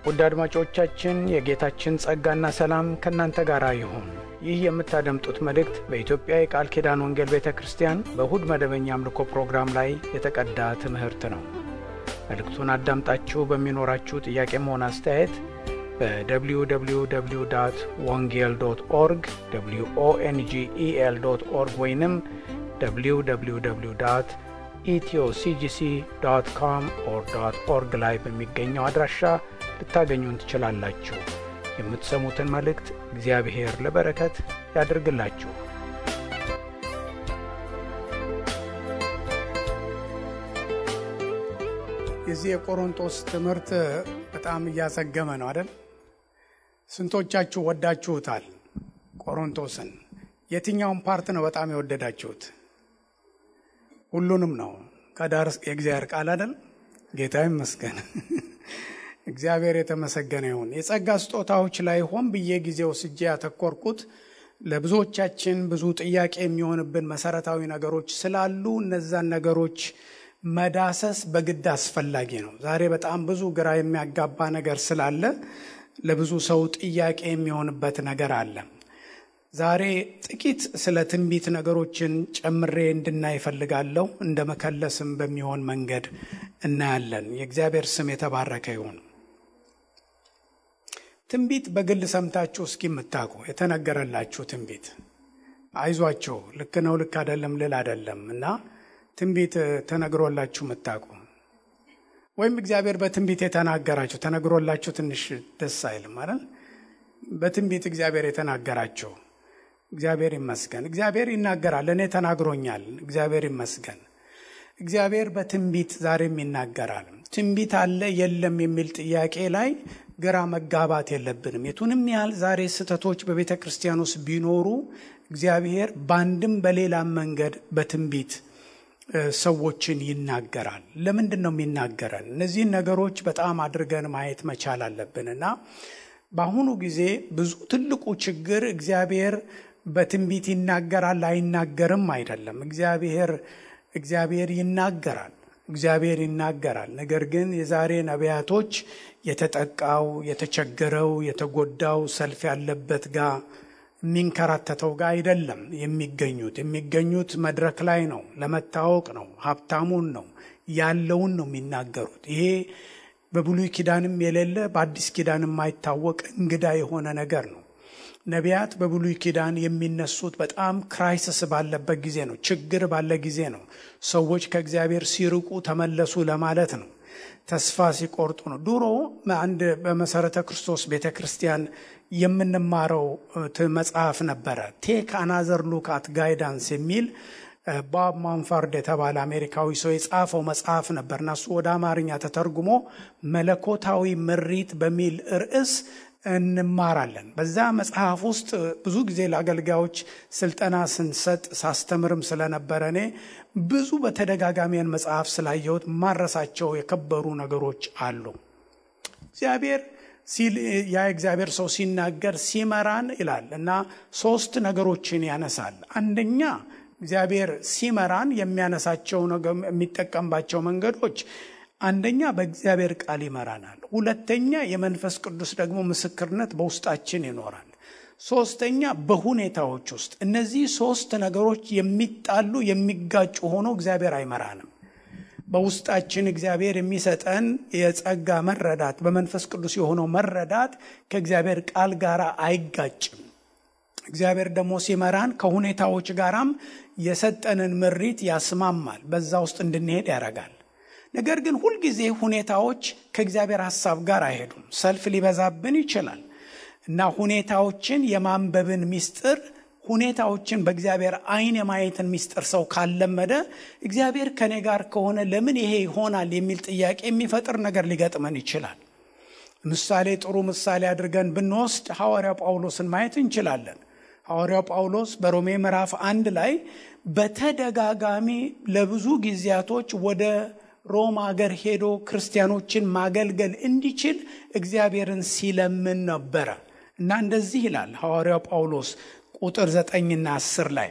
ውድ አድማጮቻችን የጌታችን ጸጋና ሰላም ከእናንተ ጋር ይሁን። ይህ የምታደምጡት መልእክት በኢትዮጵያ የቃል ኪዳን ወንጌል ቤተክርስቲያን በእሁድ መደበኛ አምልኮ ፕሮግራም ላይ የተቀዳ ትምህርት ነው። መልእክቱን አዳምጣችሁ በሚኖራችሁ ጥያቄም ሆነ አስተያየት በwww.wongel.org wongel.org ወይንም www.ethioCGC.com/org ላይ በሚገኘው አድራሻ ልታገኙን ትችላላችሁ። የምትሰሙትን መልእክት እግዚአብሔር ለበረከት ያድርግላችሁ። የዚህ የቆሮንቶስ ትምህርት በጣም እያሰገመ ነው አይደል? ስንቶቻችሁ ወዳችሁታል ቆሮንቶስን? የትኛውን ፓርት ነው በጣም የወደዳችሁት? ሁሉንም ነው። ከዳር የእግዚአብሔር ቃል አይደል? ጌታ ይመስገን። እግዚአብሔር የተመሰገነ ይሁን። የጸጋ ስጦታዎች ላይ ሆን ብዬ ጊዜው ስጄ ያተኮርኩት ለብዙዎቻችን ብዙ ጥያቄ የሚሆንብን መሰረታዊ ነገሮች ስላሉ እነዛን ነገሮች መዳሰስ በግድ አስፈላጊ ነው። ዛሬ በጣም ብዙ ግራ የሚያጋባ ነገር ስላለ ለብዙ ሰው ጥያቄ የሚሆንበት ነገር አለ። ዛሬ ጥቂት ስለ ትንቢት ነገሮችን ጨምሬ እንድናይ እፈልጋለሁ። እንደ መከለስም በሚሆን መንገድ እናያለን። የእግዚአብሔር ስም የተባረከ ይሁን። ትንቢት በግል ሰምታችሁ እስኪምታውቁ የተነገረላችሁ ትንቢት አይዟችሁ ልክ ነው ልክ አይደለም ልል አይደለም እና ትንቢት ተነግሮላችሁ ምታውቁ ወይም እግዚአብሔር በትንቢት የተናገራችሁ ተነግሮላችሁ ትንሽ ደስ አይልም አይደል? በትንቢት እግዚአብሔር የተናገራችሁ እግዚአብሔር ይመስገን። እግዚአብሔር ይናገራል። እኔ ተናግሮኛል። እግዚአብሔር ይመስገን። እግዚአብሔር በትንቢት ዛሬም ይናገራል። ትንቢት አለ የለም የሚል ጥያቄ ላይ ግራ መጋባት የለብንም። የቱንም ያህል ዛሬ ስህተቶች በቤተ ክርስቲያን ውስጥ ቢኖሩ እግዚአብሔር በአንድም በሌላም መንገድ በትንቢት ሰዎችን ይናገራል። ለምንድን ነው የሚናገረን? እነዚህን ነገሮች በጣም አድርገን ማየት መቻል አለብንና በአሁኑ ጊዜ ብዙ ትልቁ ችግር እግዚአብሔር በትንቢት ይናገራል አይናገርም አይደለም። እግዚአብሔር ይናገራል። ነገር ግን የዛሬ ነቢያቶች የተጠቃው፣ የተቸገረው፣ የተጎዳው፣ ሰልፍ ያለበት ጋር የሚንከራተተው ጋር አይደለም የሚገኙት መድረክ ላይ ነው። ለመታወቅ ነው። ሀብታሙን ነው ያለውን ነው የሚናገሩት። ይሄ በብሉይ ኪዳንም የሌለ በአዲስ ኪዳንም የማይታወቅ እንግዳ የሆነ ነገር ነው። ነቢያት በብሉይ ኪዳን የሚነሱት በጣም ክራይሲስ ባለበት ጊዜ ነው። ችግር ባለ ጊዜ ነው። ሰዎች ከእግዚአብሔር ሲርቁ ተመለሱ ለማለት ነው። ተስፋ ሲቆርጡ ነው። ድሮ አንድ በመሰረተ ክርስቶስ ቤተክርስቲያን የምንማረው መጽሐፍ ነበረ። ቴክ አናዘር ሉክ አት ጋይዳንስ የሚል ቦብ ማንፋርድ የተባለ አሜሪካዊ ሰው የጻፈው መጽሐፍ ነበርና እሱ ወደ አማርኛ ተተርጉሞ መለኮታዊ ምሪት በሚል ርዕስ እንማራለን። በዛ መጽሐፍ ውስጥ ብዙ ጊዜ ለአገልጋዮች ስልጠና ስንሰጥ ሳስተምርም ስለነበረ እኔ ብዙ በተደጋጋሚን መጽሐፍ ስላየሁት ማረሳቸው የከበሩ ነገሮች አሉ። እግዚአብሔር ሰው ሲናገር ሲመራን ይላል እና ሶስት ነገሮችን ያነሳል። አንደኛ እግዚአብሔር ሲመራን የሚያነሳቸው የሚጠቀምባቸው መንገዶች አንደኛ በእግዚአብሔር ቃል ይመራናል። ሁለተኛ የመንፈስ ቅዱስ ደግሞ ምስክርነት በውስጣችን ይኖራል። ሶስተኛ በሁኔታዎች ውስጥ እነዚህ ሶስት ነገሮች የሚጣሉ የሚጋጩ ሆኖ እግዚአብሔር አይመራንም። በውስጣችን እግዚአብሔር የሚሰጠን የጸጋ መረዳት በመንፈስ ቅዱስ የሆነው መረዳት ከእግዚአብሔር ቃል ጋር አይጋጭም። እግዚአብሔር ደግሞ ሲመራን ከሁኔታዎች ጋራም የሰጠንን ምሪት ያስማማል። በዛ ውስጥ እንድንሄድ ያደርጋል። ነገር ግን ሁልጊዜ ሁኔታዎች ከእግዚአብሔር ሐሳብ ጋር አይሄዱም። ሰልፍ ሊበዛብን ይችላል እና ሁኔታዎችን የማንበብን ሚስጥር ሁኔታዎችን በእግዚአብሔር አይን የማየትን ሚስጥር ሰው ካለመደ እግዚአብሔር ከኔ ጋር ከሆነ ለምን ይሄ ይሆናል የሚል ጥያቄ የሚፈጥር ነገር ሊገጥመን ይችላል። ጥሩ ምሳሌ አድርገን ብንወስድ ሐዋርያው ጳውሎስን ማየት እንችላለን። ሐዋርያው ጳውሎስ በሮሜ ምዕራፍ 1 ላይ በተደጋጋሚ ለብዙ ጊዜያቶች ወደ ሮም ሀገር ሄዶ ክርስቲያኖችን ማገልገል እንዲችል እግዚአብሔርን ሲለምን ነበረ እና እንደዚህ ይላል ሐዋርያው ጳውሎስ ቁጥር 9 እና 10 ላይ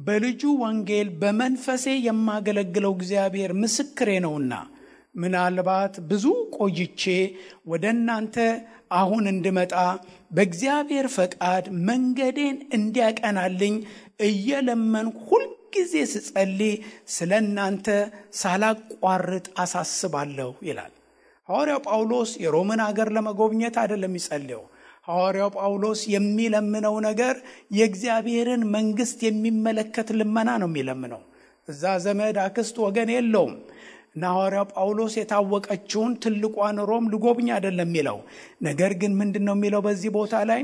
በልጁ ወንጌል በመንፈሴ የማገለግለው እግዚአብሔር ምስክሬ ነውና ምናልባት ብዙ ቆይቼ ወደ እናንተ አሁን እንድመጣ በእግዚአብሔር ፈቃድ መንገዴን እንዲያቀናልኝ እየለመንኩ ሁልጊዜ ስጸልይ ስለ እናንተ ሳላቋርጥ አሳስባለሁ ይላል። ሐዋርያው ጳውሎስ የሮምን ሀገር ለመጎብኘት አይደለም የሚጸልየው። ሐዋርያው ጳውሎስ የሚለምነው ነገር የእግዚአብሔርን መንግስት የሚመለከት ልመና ነው የሚለምነው። እዛ ዘመድ አክስት ወገን የለውም እና ሐዋርያው ጳውሎስ የታወቀችውን ትልቋን ሮም ልጎብኝ አይደለም የሚለው። ነገር ግን ምንድነው የሚለው በዚህ ቦታ ላይ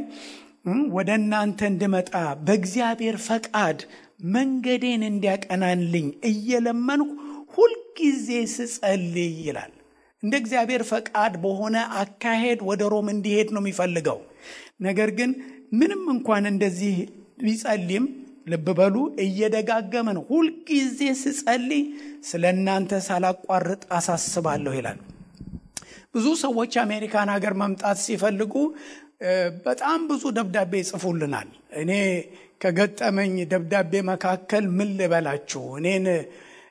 ወደ እናንተ እንድመጣ በእግዚአብሔር ፈቃድ መንገዴን እንዲያቀናልኝ እየለመንኩ ሁልጊዜ ስጸልይ ይላል። እንደ እግዚአብሔር ፈቃድ በሆነ አካሄድ ወደ ሮም እንዲሄድ ነው የሚፈልገው። ነገር ግን ምንም እንኳን እንደዚህ ቢጸልይም ልብ በሉ እየደጋገመ ነው ሁልጊዜ ስጸልይ ስለ እናንተ ሳላቋርጥ አሳስባለሁ ይላል። ብዙ ሰዎች አሜሪካን ሀገር መምጣት ሲፈልጉ በጣም ብዙ ደብዳቤ ይጽፉልናል። እኔ ከገጠመኝ ደብዳቤ መካከል ምን ልበላችሁ፣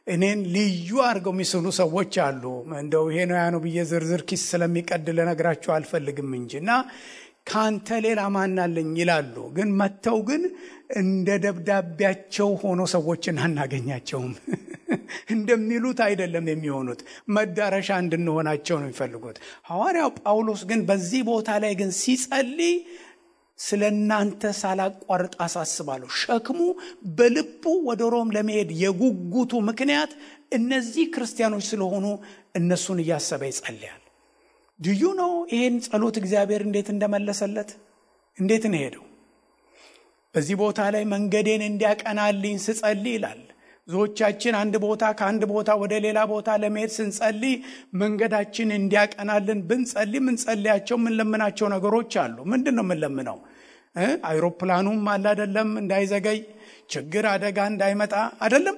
እኔን ልዩ አድርገው የሚስሉ ሰዎች አሉ። እንደው ይሄ ነው ያ ነው ብዬ ዝርዝር ኪስ ስለሚቀድል ልነግራችሁ አልፈልግም እንጂና ካንተ ሌላ ማን አለኝ ይላሉ። ግን መተው ግን እንደ ደብዳቤያቸው ሆኖ ሰዎችን አናገኛቸውም። እንደሚሉት አይደለም የሚሆኑት፣ መዳረሻ እንድንሆናቸው ነው የሚፈልጉት። ሐዋርያው ጳውሎስ ግን በዚህ ቦታ ላይ ግን ሲጸልይ ስለ እናንተ ሳላቋርጥ አሳስባለሁ። ሸክሙ በልቡ ወደ ሮም ለመሄድ የጉጉቱ ምክንያት እነዚህ ክርስቲያኖች ስለሆኑ እነሱን እያሰበ ይጸልያል። ዱዩ ነው ይሄን ጸሎት እግዚአብሔር እንዴት እንደመለሰለት እንዴት ነው ሄደው። በዚህ ቦታ ላይ መንገዴን እንዲያቀናልኝ ስጸልይ ይላል። ብዙዎቻችን ከአንድ ቦታ ወደ ሌላ ቦታ ለመሄድ ስንጸልይ መንገዳችን እንዲያቀናልን ብንጸልይ ምንጸልያቸው ምንለምናቸው ነገሮች አሉ። ምንድነው ምንለምነው? አይሮፕላኑም አለ አይደለም እንዳይዘገይ፣ ችግር አደጋ እንዳይመጣ አይደለም፣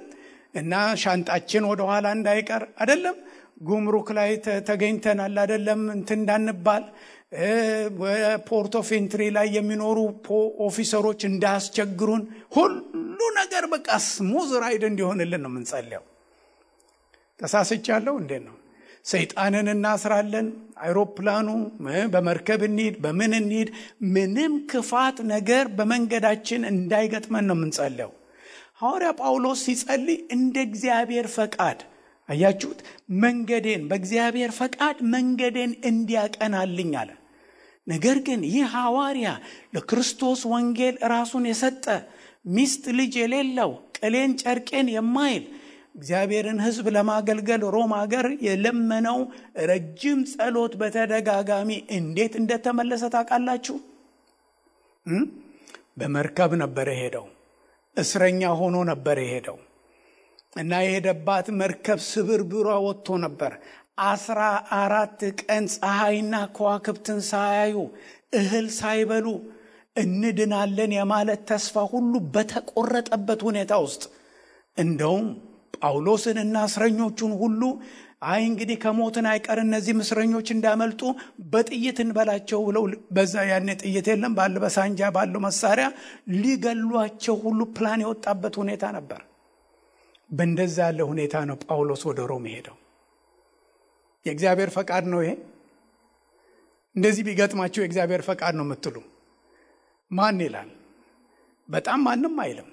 እና ሻንጣችን ወደ ኋላ እንዳይቀር አይደለም፣ ጉምሩክ ላይ ተገኝተናል አይደለም እንዳንባል፣ ፖርት ኦፍ ኤንትሪ ላይ የሚኖሩ ኦፊሰሮች እንዳያስቸግሩን፣ ሁሉ ነገር በቃ ስሙዝ ራይድ እንዲሆንልን ነው የምንጸልየው። ተሳስቻለሁ እንዴ ነው? ሰይጣንን እናስራለን። አይሮፕላኑ በመርከብ እንሂድ በምን እንሂድ፣ ምንም ክፋት ነገር በመንገዳችን እንዳይገጥመን ነው የምንጸልየው። ሐዋርያ ጳውሎስ ሲጸልይ እንደ እግዚአብሔር ፈቃድ አያችሁት፣ መንገዴን በእግዚአብሔር ፈቃድ መንገዴን እንዲያቀናልኝ አለ። ነገር ግን ይህ ሐዋርያ ለክርስቶስ ወንጌል ራሱን የሰጠ ሚስት ልጅ የሌለው ቅሌን ጨርቄን የማይል እግዚአብሔርን ሕዝብ ለማገልገል ሮም ሀገር የለመነው ረጅም ጸሎት በተደጋጋሚ እንዴት እንደተመለሰ ታውቃላችሁ? በመርከብ ነበር የሄደው። እስረኛ ሆኖ ነበር የሄደው እና የሄደባት መርከብ ስብርብሯ ወጥቶ ነበር። 14 ቀን ፀሐይና ከዋክብትን ሳያዩ እህል ሳይበሉ እንድናለን የማለት ተስፋ ሁሉ በተቆረጠበት ሁኔታ ውስጥ እንደውም ጳውሎስንና እስረኞቹን ሁሉ እንግዲህ ከሞትን አይቀር እነዚህ እስረኞች እንዳመልጡ በጥይት እንበላቸው ብለው በዛ ያኔ ጥይት የለም በሳንጃ ባለው መሳሪያ ሊገሏቸው ሁሉ ፕላን የወጣበት ሁኔታ ነበር። በእንደዛ ያለ ሁኔታ ነው ጳውሎስ ወደ ሮም ሄደው። የእግዚአብሔር ፈቃድ ነው ይሄ? እንደዚህ ቢገጥማቸው የእግዚአብሔር ፈቃድ ነው የምትሉ ማን ይላል? በጣም ማንም አይልም።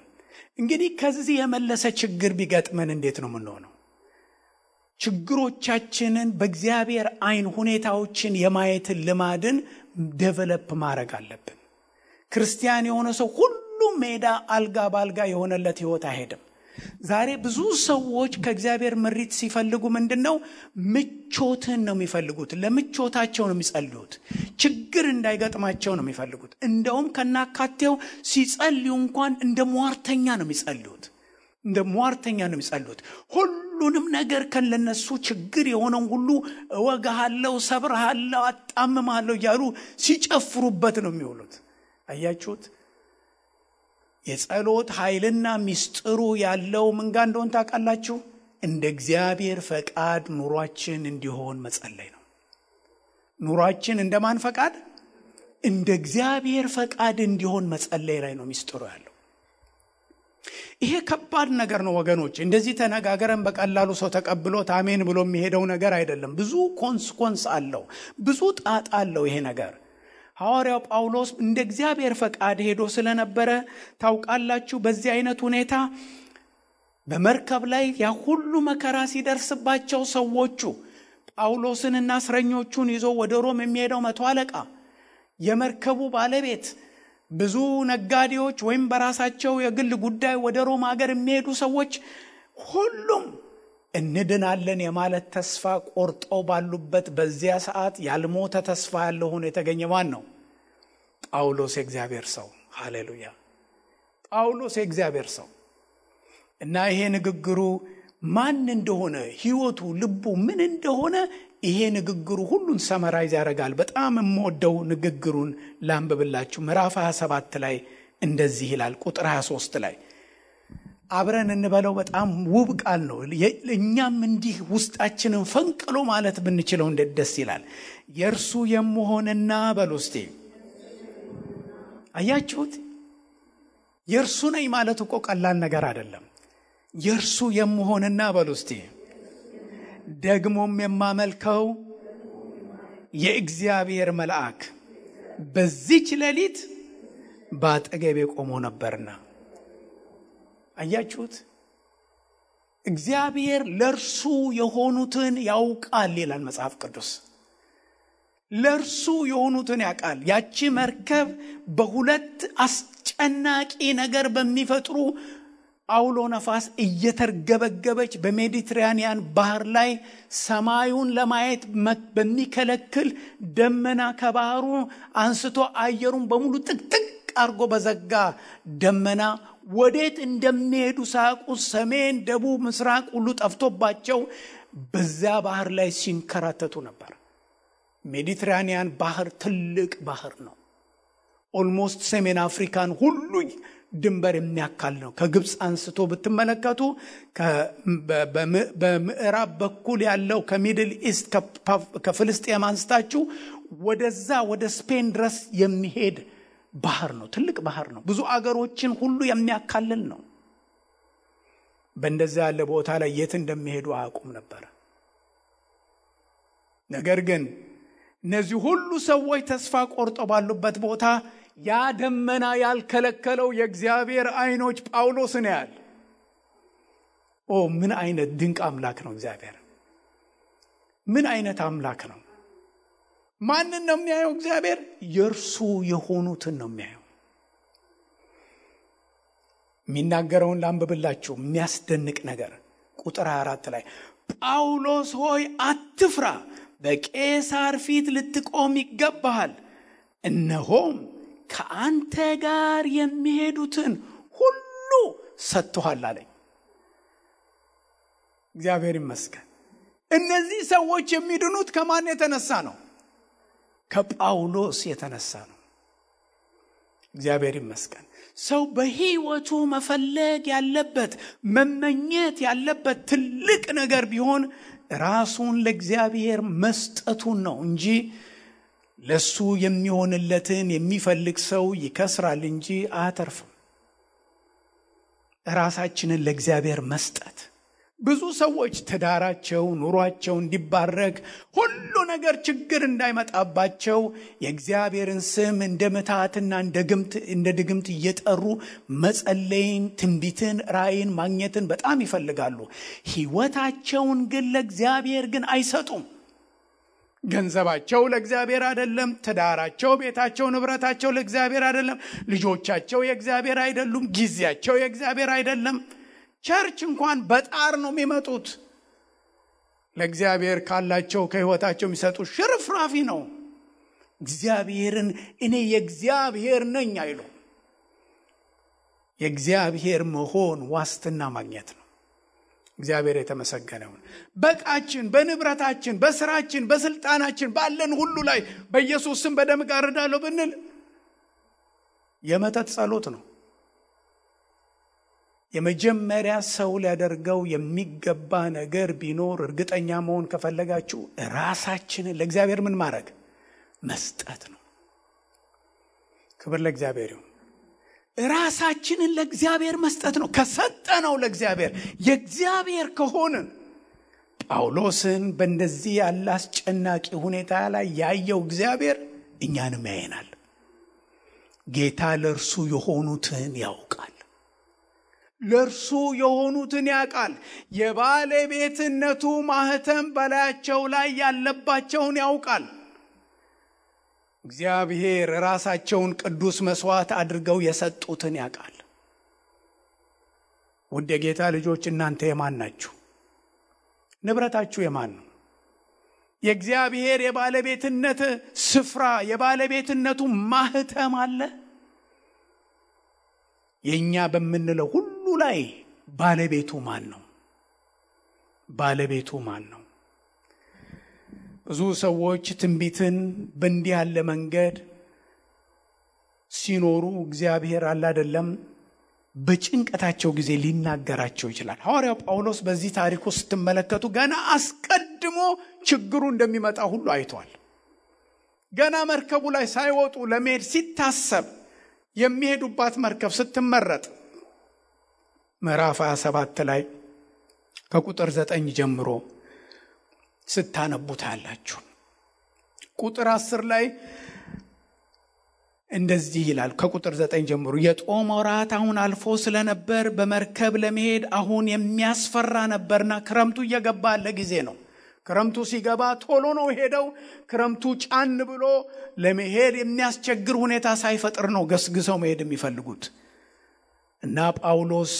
እንግዲህ ከዚህ የመለሰ ችግር ቢገጥመን እንዴት ነው የምንሆነው? ችግሮቻችንን በእግዚአብሔር አይን ሁኔታዎችን የማየትን ልማድን ዴቨሎፕ ማድረግ አለብን። ክርስቲያን የሆነ ሰው ሁሉ ሜዳ አልጋ ባልጋ የሆነለት ህይወት አይሄድም። ዛሬ ብዙ ሰዎች ከእግዚአብሔር ምሪት ሲፈልጉ ምንድነው? ምቾትን ነው የሚፈልጉት። ለምቾታቸው ነው የሚጸልዩት። ችግር እንዳይገጥማቸው ነው የሚፈልጉት። እንደውም ከናካቴው ሲጸልዩ እንኳን እንደ ሟርተኛ ነው የሚጸልዩት። ሁሉንም ነገር ከነሱ ችግር የሆነው ሁሉ እወጋሃለሁ፣ ሰብርሃለሁ፣ አጣምማለሁ እያሉ ሲጨፍሩበት ነው የሚውሉት። አያችሁት? የጸሎት ኃይልና ሚስጥሩ ያለው ምን ጋር እንደሆነ ታውቃላችሁ? እንደ እግዚአብሔር ፈቃድ ኑሯችን እንዲሆን መጸለይ ነው። ኑሯችን እንደማን ፈቃድ? እንደ እግዚአብሔር ፈቃድ እንዲሆን መጸለይ ላይ ነው ሚስጥሩ ያለው። ይሄ ከባድ ነገር ነው ወገኖች። እንደዚህ ተነጋገረን በቀላሉ ሰው ተቀብሎት አሜን ብሎ የሚሄደው ነገር አይደለም። ብዙ ኮንስኮንስ አለው፣ ብዙ ጣጣ አለው ይሄ ነገር። ሐዋርያው ጳውሎስ እንደ እግዚአብሔር ፈቃድ ሄዶ ስለነበረ ታውቃላችሁ፣ በዚህ አይነት ሁኔታ በመርከብ ላይ ያ ሁሉ መከራ ሲደርስባቸው ሰዎቹ ጳውሎስንና እስረኞቹን ይዞ ወደ ሮም የሚሄደው መቶ አለቃ፣ የመርከቡ ባለቤት፣ ብዙ ነጋዴዎች ወይም በራሳቸው የግል ጉዳይ ወደ ሮም ሀገር የሚሄዱ ሰዎች ሁሉም እንድናለን የማለት ተስፋ ቆርጠው ባሉበት በዚያ ሰዓት ያልሞተ ተስፋ ያለው ሆኖ የተገኘ ማን ነው? ጳውሎስ የእግዚአብሔር ሰው። ሃሌሉያ! ጳውሎስ የእግዚአብሔር ሰው እና ይሄ ንግግሩ ማን እንደሆነ ህይወቱ፣ ልቡ ምን እንደሆነ ይሄ ንግግሩ ሁሉን ሰመራይዝ ያደርጋል። በጣም የምወደው ንግግሩን ላንብብላችሁ። ምዕራፍ 27 ላይ እንደዚህ ይላል። ቁጥር 23 ላይ አብረን እንበለው። በጣም ውብ ቃል ነው። እኛም እንዲህ ውስጣችንን ፈንቅሎ ማለት ብንችለው እንዴት ደስ ይላል። የእርሱ የምሆንና በሉ እስቲ። አያችሁት? የእርሱ ነኝ ማለት እኮ ቀላል ነገር አይደለም። የእርሱ የምሆንና በሉ እስቲ ደግሞም የማመልከው የእግዚአብሔር መልአክ በዚች ሌሊት በአጠገቤ ቆሞ ነበርና። አያችሁት? እግዚአብሔር ለእርሱ የሆኑትን ያውቃል ይላል መጽሐፍ ቅዱስ። ለእርሱ የሆኑትን ያውቃል። ያቺ መርከብ በሁለት አስጨናቂ ነገር በሚፈጥሩ አውሎ ነፋስ እየተርገበገበች በሜዲትራኒያን ባህር ላይ ሰማዩን ለማየት በሚከለክል ደመና ከባህሩ አንስቶ አየሩን በሙሉ ጥቅጥቅ አርጎ በዘጋ ደመና ወዴት እንደሚሄዱ ሳያውቁ ሰሜን፣ ደቡብ፣ ምስራቅ ሁሉ ጠፍቶባቸው በዛ ባህር ላይ ሲንከራተቱ ነበር። ሜዲትራኒያን ባህር ትልቅ ባህር ነው። ኦልሞስት ሰሜን አፍሪካን ሁሉ ድንበር የሚያካል ነው። ከግብፅ አንስቶ ብትመለከቱ በምዕራብ በኩል ያለው ከሚድል ኢስት ከፍልስጤም አንስታችሁ ወደዛ ወደ ስፔን ድረስ የሚሄድ ባህር ነው። ትልቅ ባህር ነው። ብዙ አገሮችን ሁሉ የሚያካልል ነው። በእንደዛ ያለ ቦታ ላይ የት እንደሚሄዱ አያውቁም ነበር። ነገር ግን እነዚህ ሁሉ ሰዎች ተስፋ ቆርጠው ባሉበት ቦታ ያ ደመና ያልከለከለው የእግዚአብሔር አይኖች ጳውሎስን ያያል። ምን አይነት ድንቅ አምላክ ነው እግዚአብሔር! ምን አይነት አምላክ ነው! ማንን ነው የሚያየው እግዚአብሔር? የእርሱ የሆኑትን ነው የሚያየው። የሚናገረውን ላንብብላችሁ። የሚያስደንቅ ነገር ቁጥር 4 ላይ ጳውሎስ ሆይ አትፍራ፣ በቄሳር ፊት ልትቆም ይገባሃል። እነሆም ከአንተ ጋር የሚሄዱትን ሁሉ ሰጥቶሃል አለኝ። እግዚአብሔር ይመስገን። እነዚህ ሰዎች የሚድኑት ከማን የተነሳ ነው? ከጳውሎስ የተነሳ ነው። እግዚአብሔር ይመስገን። ሰው በህይወቱ መፈለግ ያለበት መመኘት ያለበት ትልቅ ነገር ቢሆን ራሱን ለእግዚአብሔር መስጠቱን ነው እንጂ ለሱ የሚሆንለትን የሚፈልግ ሰው ይከስራል እንጂ አያተርፍም። ራሳችንን ለእግዚአብሔር መስጠት። ብዙ ሰዎች ትዳራቸው፣ ኑሯቸው እንዲባረክ ሁሉ ነገር ችግር እንዳይመጣባቸው የእግዚአብሔርን ስም እንደ ምትሃትና እንደ ድግምት እየጠሩ መጸለይን፣ ትንቢትን፣ ራእይን ማግኘትን በጣም ይፈልጋሉ። ህይወታቸውን ግን ለእግዚአብሔር ግን አይሰጡም። ገንዘባቸው ለእግዚአብሔር አይደለም። ትዳራቸው፣ ቤታቸው፣ ንብረታቸው ለእግዚአብሔር አይደለም። ልጆቻቸው የእግዚአብሔር አይደሉም። ጊዜያቸው የእግዚአብሔር አይደለም። ቸርች እንኳን በጣር ነው የሚመጡት። ለእግዚአብሔር ካላቸው ከህይወታቸው የሚሰጡት ሽርፍራፊ ነው። እግዚአብሔርን እኔ የእግዚአብሔር ነኝ አይሉ። የእግዚአብሔር መሆን ዋስትና ማግኘት ነው። እግዚአብሔር የተመሰገነውን በቃችን፣ በንብረታችን፣ በስራችን፣ በስልጣናችን፣ ባለን ሁሉ ላይ በኢየሱስ ስም በደም ጋርዳለሁ ብንል የመተት ጸሎት ነው። የመጀመሪያ ሰው ሊያደርገው የሚገባ ነገር ቢኖር እርግጠኛ መሆን ከፈለጋችሁ ራሳችንን ለእግዚአብሔር ምን ማድረግ? መስጠት ነው። ክብር ለእግዚአብሔር ይሁን። ራሳችንን ለእግዚአብሔር መስጠት ነው። ከሰጠነው ለእግዚአብሔር የእግዚአብሔር ከሆንን ጳውሎስን በእንደዚህ ያለ አስጨናቂ ሁኔታ ላይ ያየው እግዚአብሔር እኛንም ያየናል። ጌታ ለእርሱ የሆኑትን ያውቃል። ለእርሱ የሆኑትን ያውቃል። የባለቤትነቱ ማህተም በላያቸው ላይ ያለባቸውን ያውቃል። እግዚአብሔር ራሳቸውን ቅዱስ መስዋዕት አድርገው የሰጡትን ያውቃል። ውድ የጌታ ልጆች እናንተ የማን ናችሁ? ንብረታችሁ የማን ነው? የእግዚአብሔር የባለቤትነት ስፍራ የባለቤትነቱ ማህተም አለ። የኛ በምንለው ሁሉ ላይ ባለቤቱ ማን ነው? ባለቤቱ ማን ነው? ብዙ ሰዎች ትንቢትን በእንዲህ ያለ መንገድ ሲኖሩ እግዚአብሔር አይደለም በጭንቀታቸው ጊዜ ሊናገራቸው ይችላል። ሐዋርያው ጳውሎስ በዚህ ታሪክ ውስጥ ስትመለከቱ ገና አስቀድሞ ችግሩ እንደሚመጣ ሁሉ አይቷል። ገና መርከቡ ላይ ሳይወጡ ለመሄድ ሲታሰብ የሚሄዱባት መርከብ ስትመረጥ ምዕራፍ 27 ላይ ከቁጥር 9 ጀምሮ ስታነቡት አላችሁ። ቁጥር 10 ላይ እንደዚህ ይላል። ከቁጥር 9 ጀምሮ የጦም ወራት አሁን አልፎ ስለነበር በመርከብ ለመሄድ አሁን የሚያስፈራ ነበርና ክረምቱ እየገባ ያለ ጊዜ ነው። ክረምቱ ሲገባ ቶሎ ነው ሄደው ክረምቱ ጫን ብሎ ለመሄድ የሚያስቸግር ሁኔታ ሳይፈጥር ነው ገስግሰው መሄድ የሚፈልጉት። እና ጳውሎስ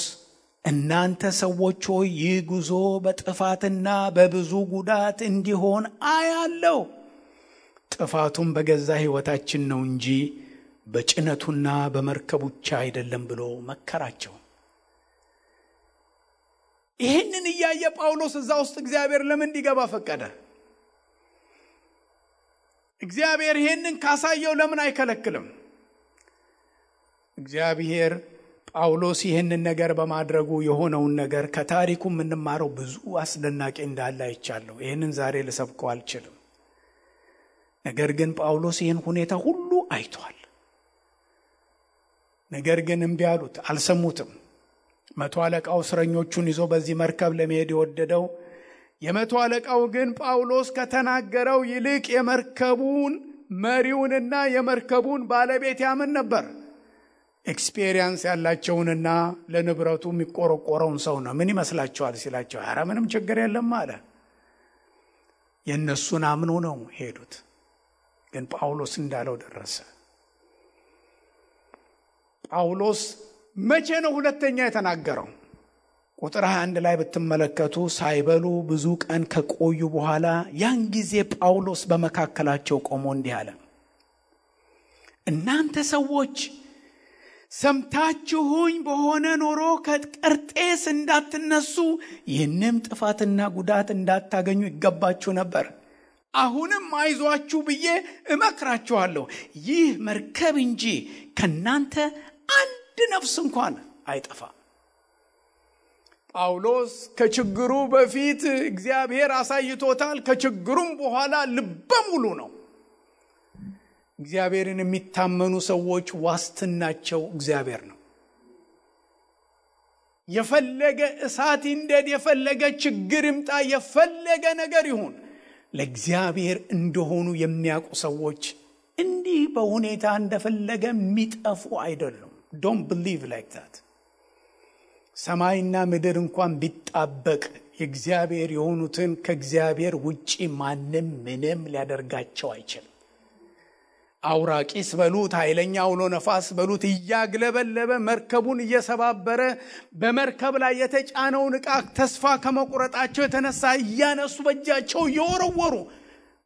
እናንተ ሰዎች ሆይ ይህ ጉዞ በጥፋትና በብዙ ጉዳት እንዲሆን አያለው። ጥፋቱም በገዛ ሕይወታችን ነው እንጂ በጭነቱና በመርከቡ ብቻ አይደለም ብሎ መከራቸው። ይህንን እያየ ጳውሎስ እዛ ውስጥ እግዚአብሔር ለምን እንዲገባ ፈቀደ? እግዚአብሔር ይህንን ካሳየው ለምን አይከለክልም? እግዚአብሔር ጳውሎስ ይህንን ነገር በማድረጉ የሆነውን ነገር ከታሪኩ የምንማረው ብዙ አስደናቂ እንዳለ አይቻለሁ። ይህንን ዛሬ ልሰብከው አልችልም። ነገር ግን ጳውሎስ ይህን ሁኔታ ሁሉ አይቷል። ነገር ግን እምቢ አሉት፣ አልሰሙትም። መቶ አለቃው እስረኞቹን ይዞ በዚህ መርከብ ለመሄድ የወደደው የመቶ አለቃው ግን ጳውሎስ ከተናገረው ይልቅ የመርከቡን መሪውንና የመርከቡን ባለቤት ያምን ነበር። ኤክስፒሪየንስ ያላቸውንና ለንብረቱ የሚቆረቆረውን ሰው ነው። ምን ይመስላችኋል ሲላቸው ኧረ ምንም ችግር የለም አለ። የእነሱን አምኖ ነው ሄዱት። ግን ጳውሎስ እንዳለው ደረሰ። ጳውሎስ መቼ ነው ሁለተኛ የተናገረው? ቁጥር 21 ላይ ብትመለከቱ ሳይበሉ ብዙ ቀን ከቆዩ በኋላ ያን ጊዜ ጳውሎስ በመካከላቸው ቆሞ እንዲህ አለ። እናንተ ሰዎች ሰምታችሁኝ በሆነ ኖሮ ከቀርጤስ እንዳትነሱ ይህንም ጥፋትና ጉዳት እንዳታገኙ ይገባችሁ ነበር። አሁንም አይዟችሁ ብዬ እመክራችኋለሁ። ይህ መርከብ እንጂ ከናንተ አንድ ነፍስ እንኳን አይጠፋም። ጳውሎስ ከችግሩ በፊት እግዚአብሔር አሳይቶታል። ከችግሩም በኋላ ልበ ሙሉ ነው። እግዚአብሔርን የሚታመኑ ሰዎች ዋስትናቸው እግዚአብሔር ነው። የፈለገ እሳት ይንደድ፣ የፈለገ ችግር ይምጣ፣ የፈለገ ነገር ይሁን ለእግዚአብሔር እንደሆኑ የሚያውቁ ሰዎች እንዲህ በሁኔታ እንደፈለገ የሚጠፉ አይደሉም። Don't believe like that. ሰማይና ምድር እንኳን ቢጣበቅ የእግዚአብሔር የሆኑትን ከእግዚአብሔር ውጪ ማንም ምንም ሊያደርጋቸው አይችልም። አውራቂስ በሉት፣ ኃይለኛ አውሎ ነፋስ በሉት እያግለበለበ መርከቡን እየሰባበረ በመርከብ ላይ የተጫነውን ዕቃ ተስፋ ከመቁረጣቸው የተነሳ እያነሱ በእጃቸው እየወረወሩ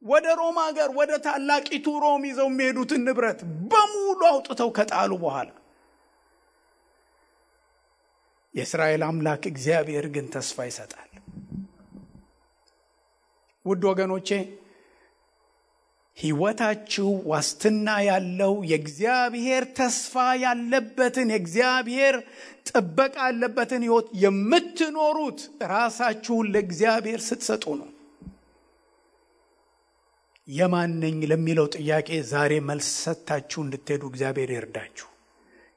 ወደ ሮም ሀገር ወደ ታላቂቱ ሮም ይዘው የሚሄዱትን ንብረት በሙሉ አውጥተው ከጣሉ በኋላ የእስራኤል አምላክ እግዚአብሔር ግን ተስፋ ይሰጣል። ውድ ወገኖቼ ሕይወታችሁ ዋስትና ያለው የእግዚአብሔር ተስፋ ያለበትን የእግዚአብሔር ጥበቃ ያለበትን ሕይወት የምትኖሩት ራሳችሁን ለእግዚአብሔር ስትሰጡ ነው። የማን ነኝ ለሚለው ጥያቄ ዛሬ መልስ ሰጥታችሁ እንድትሄዱ እግዚአብሔር ይርዳችሁ።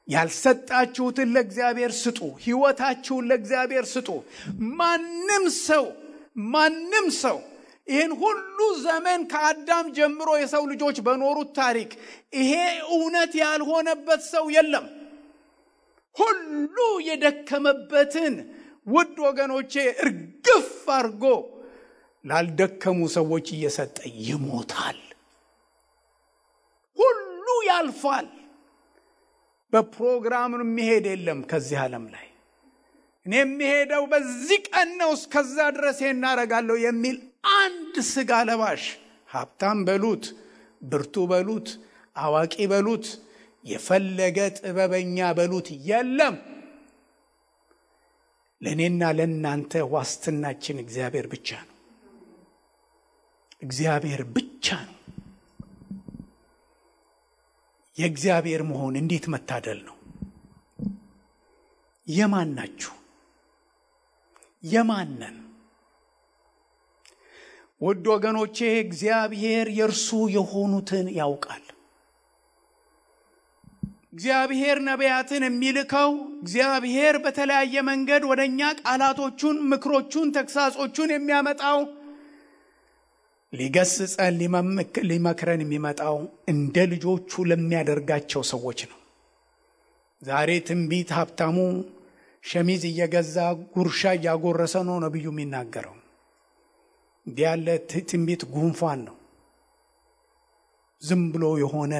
ያልሰጣችሁትን ለእግዚአብሔር ስጡ። ሕይወታችሁን ለእግዚአብሔር ስጡ። ማንም ሰው ይህን ሁሉ ዘመን ከአዳም ጀምሮ የሰው ልጆች በኖሩት ታሪክ ይሄ እውነት ያልሆነበት ሰው የለም። ሁሉ የደከመበትን ውድ ወገኖቼ እርግፍ አድርጎ ላልደከሙ ሰዎች እየሰጠ ይሞታል። ሁሉ ያልፋል። በፕሮግራም የሚሄድ የለም ከዚህ ዓለም ላይ። እኔ የሚሄደው በዚህ ቀን ነው፣ እስከዛ ድረስ እናደርጋለሁ የሚል አንድ ስጋ ለባሽ ሀብታም በሉት፣ ብርቱ በሉት፣ አዋቂ በሉት፣ የፈለገ ጥበበኛ በሉት የለም። ለእኔና ለእናንተ ዋስትናችን እግዚአብሔር ብቻ ነው። እግዚአብሔር ብቻ ነው። የእግዚአብሔር መሆን እንዴት መታደል ነው! የማን ናችሁ? የማንን? ውድ ወገኖቼ እግዚአብሔር የእርሱ የሆኑትን ያውቃል። እግዚአብሔር ነቢያትን የሚልከው እግዚአብሔር በተለያየ መንገድ ወደኛ ቃላቶቹን፣ ምክሮቹን፣ ተግሳጾቹን የሚያመጣው ሊገስጸን ሊመክረን የሚመጣው እንደ ልጆቹ ለሚያደርጋቸው ሰዎች ነው። ዛሬ ትንቢት ሀብታሙ ሸሚዝ እየገዛ ጉርሻ እያጎረሰ ነው ነብዩ የሚናገረው። እንዲህ ያለ ትንቢት ጉንፋን ነው። ዝም ብሎ የሆነ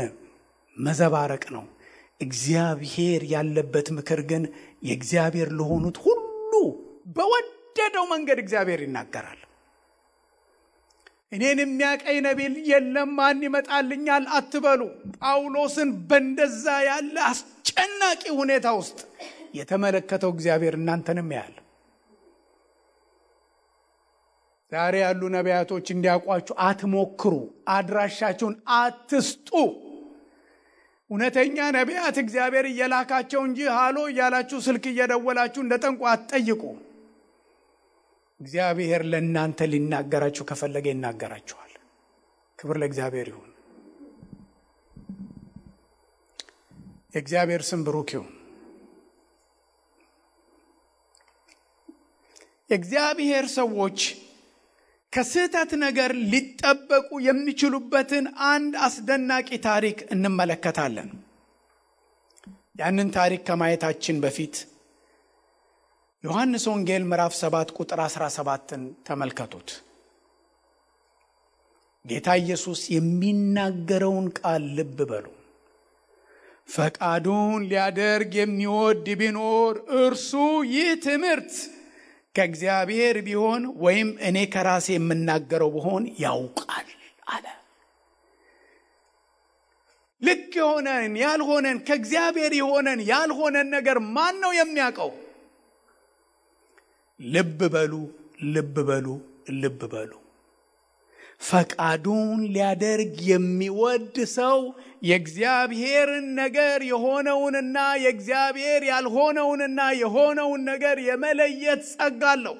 መዘባረቅ ነው። እግዚአብሔር ያለበት ምክር ግን የእግዚአብሔር ለሆኑት ሁሉ በወደደው መንገድ እግዚአብሔር ይናገራል። እኔን የሚያቀኝ ነቢይ የለም ማን ይመጣልኛል አትበሉ። ጳውሎስን በእንደዛ ያለ አስጨናቂ ሁኔታ ውስጥ የተመለከተው እግዚአብሔር እናንተንም ያያል። ዛሬ ያሉ ነቢያቶች እንዲያውቋችሁ አትሞክሩ። አድራሻችሁን አትስጡ። እውነተኛ ነቢያት እግዚአብሔር እየላካቸው እንጂ ሃሎ እያላችሁ ስልክ እየደወላችሁ እንደጠንቋ አትጠይቁ። እግዚአብሔር ለእናንተ ሊናገራችሁ ከፈለገ ይናገራችኋል። ክብር ለእግዚአብሔር ይሁን። የእግዚአብሔር ስም ብሩክ ይሁን። የእግዚአብሔር ሰዎች ከስህተት ነገር ሊጠበቁ የሚችሉበትን አንድ አስደናቂ ታሪክ እንመለከታለን። ያንን ታሪክ ከማየታችን በፊት ዮሐንስ ወንጌል ምዕራፍ 7 ቁጥር 17ን ተመልከቱት። ጌታ ኢየሱስ የሚናገረውን ቃል ልብ በሉ። ፈቃዱን ሊያደርግ የሚወድ ቢኖር እርሱ ይህ ትምህርት ከእግዚአብሔር ቢሆን ወይም እኔ ከራሴ የምናገረው ቢሆን ያውቃል አለ። ልክ የሆነን ያልሆነን፣ ከእግዚአብሔር የሆነን ያልሆነን ነገር ማን ነው የሚያውቀው? ልብ በሉ፣ ልብ በሉ፣ ልብ በሉ። ፈቃዱን ሊያደርግ የሚወድ ሰው የእግዚአብሔርን ነገር የሆነውንና የእግዚአብሔር ያልሆነውንና የሆነውን ነገር የመለየት ጸጋ አለው።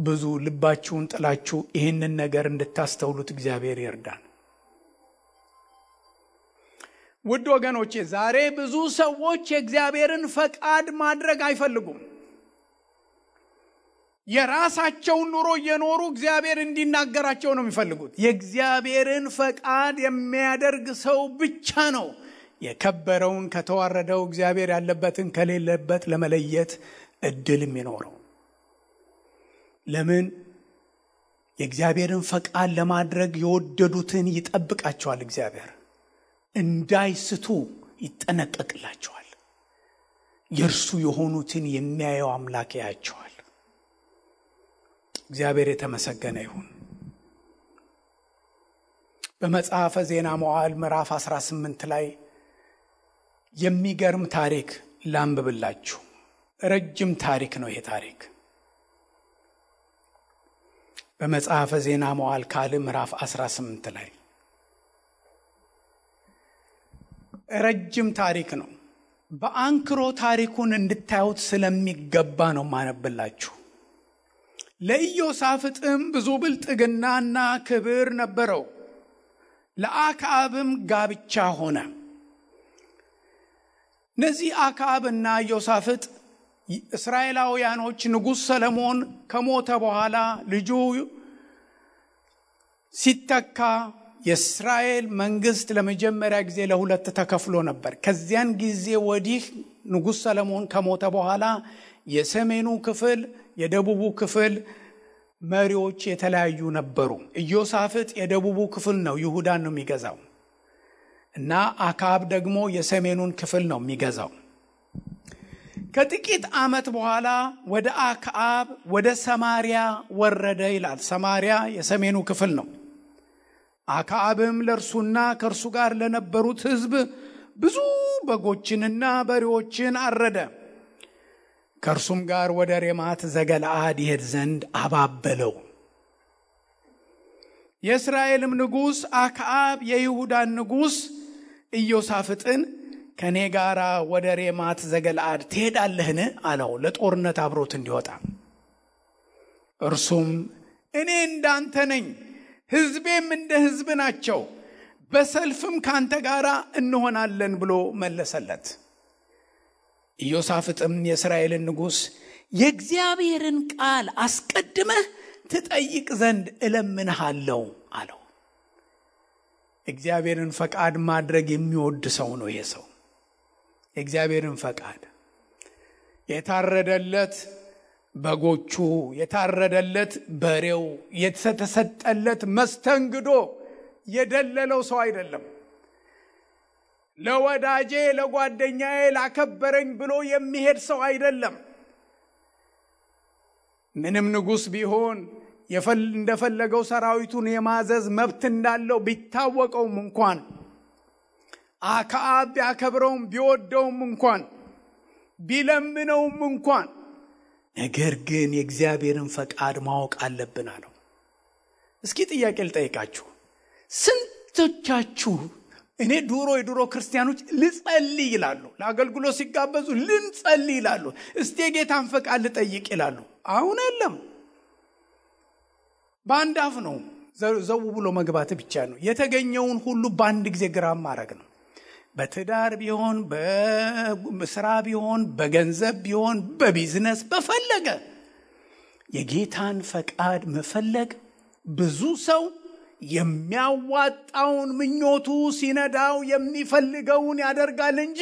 ብዙ ልባችሁን ጥላችሁ ይህንን ነገር እንድታስተውሉት እግዚአብሔር ይርዳን። ውድ ወገኖቼ ዛሬ ብዙ ሰዎች የእግዚአብሔርን ፈቃድ ማድረግ አይፈልጉም። የራሳቸውን ኑሮ እየኖሩ እግዚአብሔር እንዲናገራቸው ነው የሚፈልጉት። የእግዚአብሔርን ፈቃድ የሚያደርግ ሰው ብቻ ነው የከበረውን ከተዋረደው፣ እግዚአብሔር ያለበትን ከሌለበት ለመለየት እድል የሚኖረው። ለምን? የእግዚአብሔርን ፈቃድ ለማድረግ የወደዱትን ይጠብቃቸዋል። እግዚአብሔር እንዳይስቱ ይጠነቀቅላቸዋል። የእርሱ የሆኑትን የሚያየው አምላክ ያያቸዋል። እግዚአብሔር የተመሰገነ ይሁን። በመጽሐፈ ዜና መዋዕል ምዕራፍ 18 ላይ የሚገርም ታሪክ ላንብብላችሁ። ረጅም ታሪክ ነው ይሄ ታሪክ። በመጽሐፈ ዜና መዋዕል ካልዕ ምዕራፍ 18 ላይ ረጅም ታሪክ ነው። በአንክሮ ታሪኩን እንድታዩት ስለሚገባ ነው ማነብላችሁ። ለኢዮሳፍጥም ብዙ ብልጥግናና ክብር ነበረው። ለአክዓብም ጋብቻ ሆነ። እነዚህ አክዓብና ኢዮሳፍጥ እስራኤላውያኖች ንጉሥ ሰለሞን ከሞተ በኋላ ልጁ ሲተካ የእስራኤል መንግስት ለመጀመሪያ ጊዜ ለሁለት ተከፍሎ ነበር። ከዚያን ጊዜ ወዲህ ንጉሥ ሰለሞን ከሞተ በኋላ የሰሜኑ ክፍል የደቡቡ ክፍል መሪዎች የተለያዩ ነበሩ። ኢዮሳፍጥ የደቡቡ ክፍል ነው፣ ይሁዳን ነው የሚገዛው እና አክዓብ ደግሞ የሰሜኑን ክፍል ነው የሚገዛው። ከጥቂት ዓመት በኋላ ወደ አክዓብ ወደ ሰማሪያ ወረደ ይላል። ሰማሪያ የሰሜኑ ክፍል ነው። አክዓብም ለእርሱና ከእርሱ ጋር ለነበሩት ሕዝብ ብዙ በጎችንና በሬዎችን አረደ። ከእርሱም ጋር ወደ ሬማት ዘገለዓድ ይሄድ ዘንድ አባበለው። የእስራኤልም ንጉሥ አክዓብ የይሁዳን ንጉሥ ኢዮሳፍጥን ከኔ ጋር ወደ ሬማት ዘገለዓድ ትሄዳለህን አለው፣ ለጦርነት አብሮት እንዲወጣ። እርሱም እኔ እንዳንተ ነኝ፣ ሕዝቤም እንደ ሕዝብ ናቸው፣ በሰልፍም ካንተ ጋር እንሆናለን ብሎ መለሰለት። ኢዮሳፍጥም የእስራኤልን ንጉሥ የእግዚአብሔርን ቃል አስቀድመህ ትጠይቅ ዘንድ እለምንሃለሁ አለው። እግዚአብሔርን ፈቃድ ማድረግ የሚወድ ሰው ነው ይሄ ሰው። የእግዚአብሔርን ፈቃድ የታረደለት በጎቹ፣ የታረደለት በሬው፣ የተሰጠለት መስተንግዶ የደለለው ሰው አይደለም። ለወዳጄ ለጓደኛዬ ላከበረኝ ብሎ የሚሄድ ሰው አይደለም። ምንም ንጉሥ ቢሆን እንደፈለገው ሰራዊቱን የማዘዝ መብት እንዳለው ቢታወቀውም እንኳን አክዓብ ቢያከብረውም ቢወደውም እንኳን ቢለምነውም እንኳን ነገር ግን የእግዚአብሔርን ፈቃድ ማወቅ አለብን አለው። እስኪ ጥያቄ ልጠይቃችሁ። ስንቶቻችሁ እኔ የድሮ ክርስቲያኖች ልጸልይ ይላሉ፣ ለአገልግሎት ሲጋበዙ ልንጸልይ ይላሉ፣ እስቲ የጌታን ፈቃድ ልጠይቅ ይላሉ። አሁን የለም፣ በአንድ አፍ ነው ዘው ብሎ መግባት ብቻ ነው። የተገኘውን ሁሉ በአንድ ጊዜ ግራም ማድረግ ነው። በትዳር ቢሆን፣ በስራ ቢሆን፣ በገንዘብ ቢሆን፣ በቢዝነስ በፈለገ የጌታን ፈቃድ መፈለግ። ብዙ ሰው የሚያዋጣውን ምኞቱ ሲነዳው የሚፈልገውን ያደርጋል እንጂ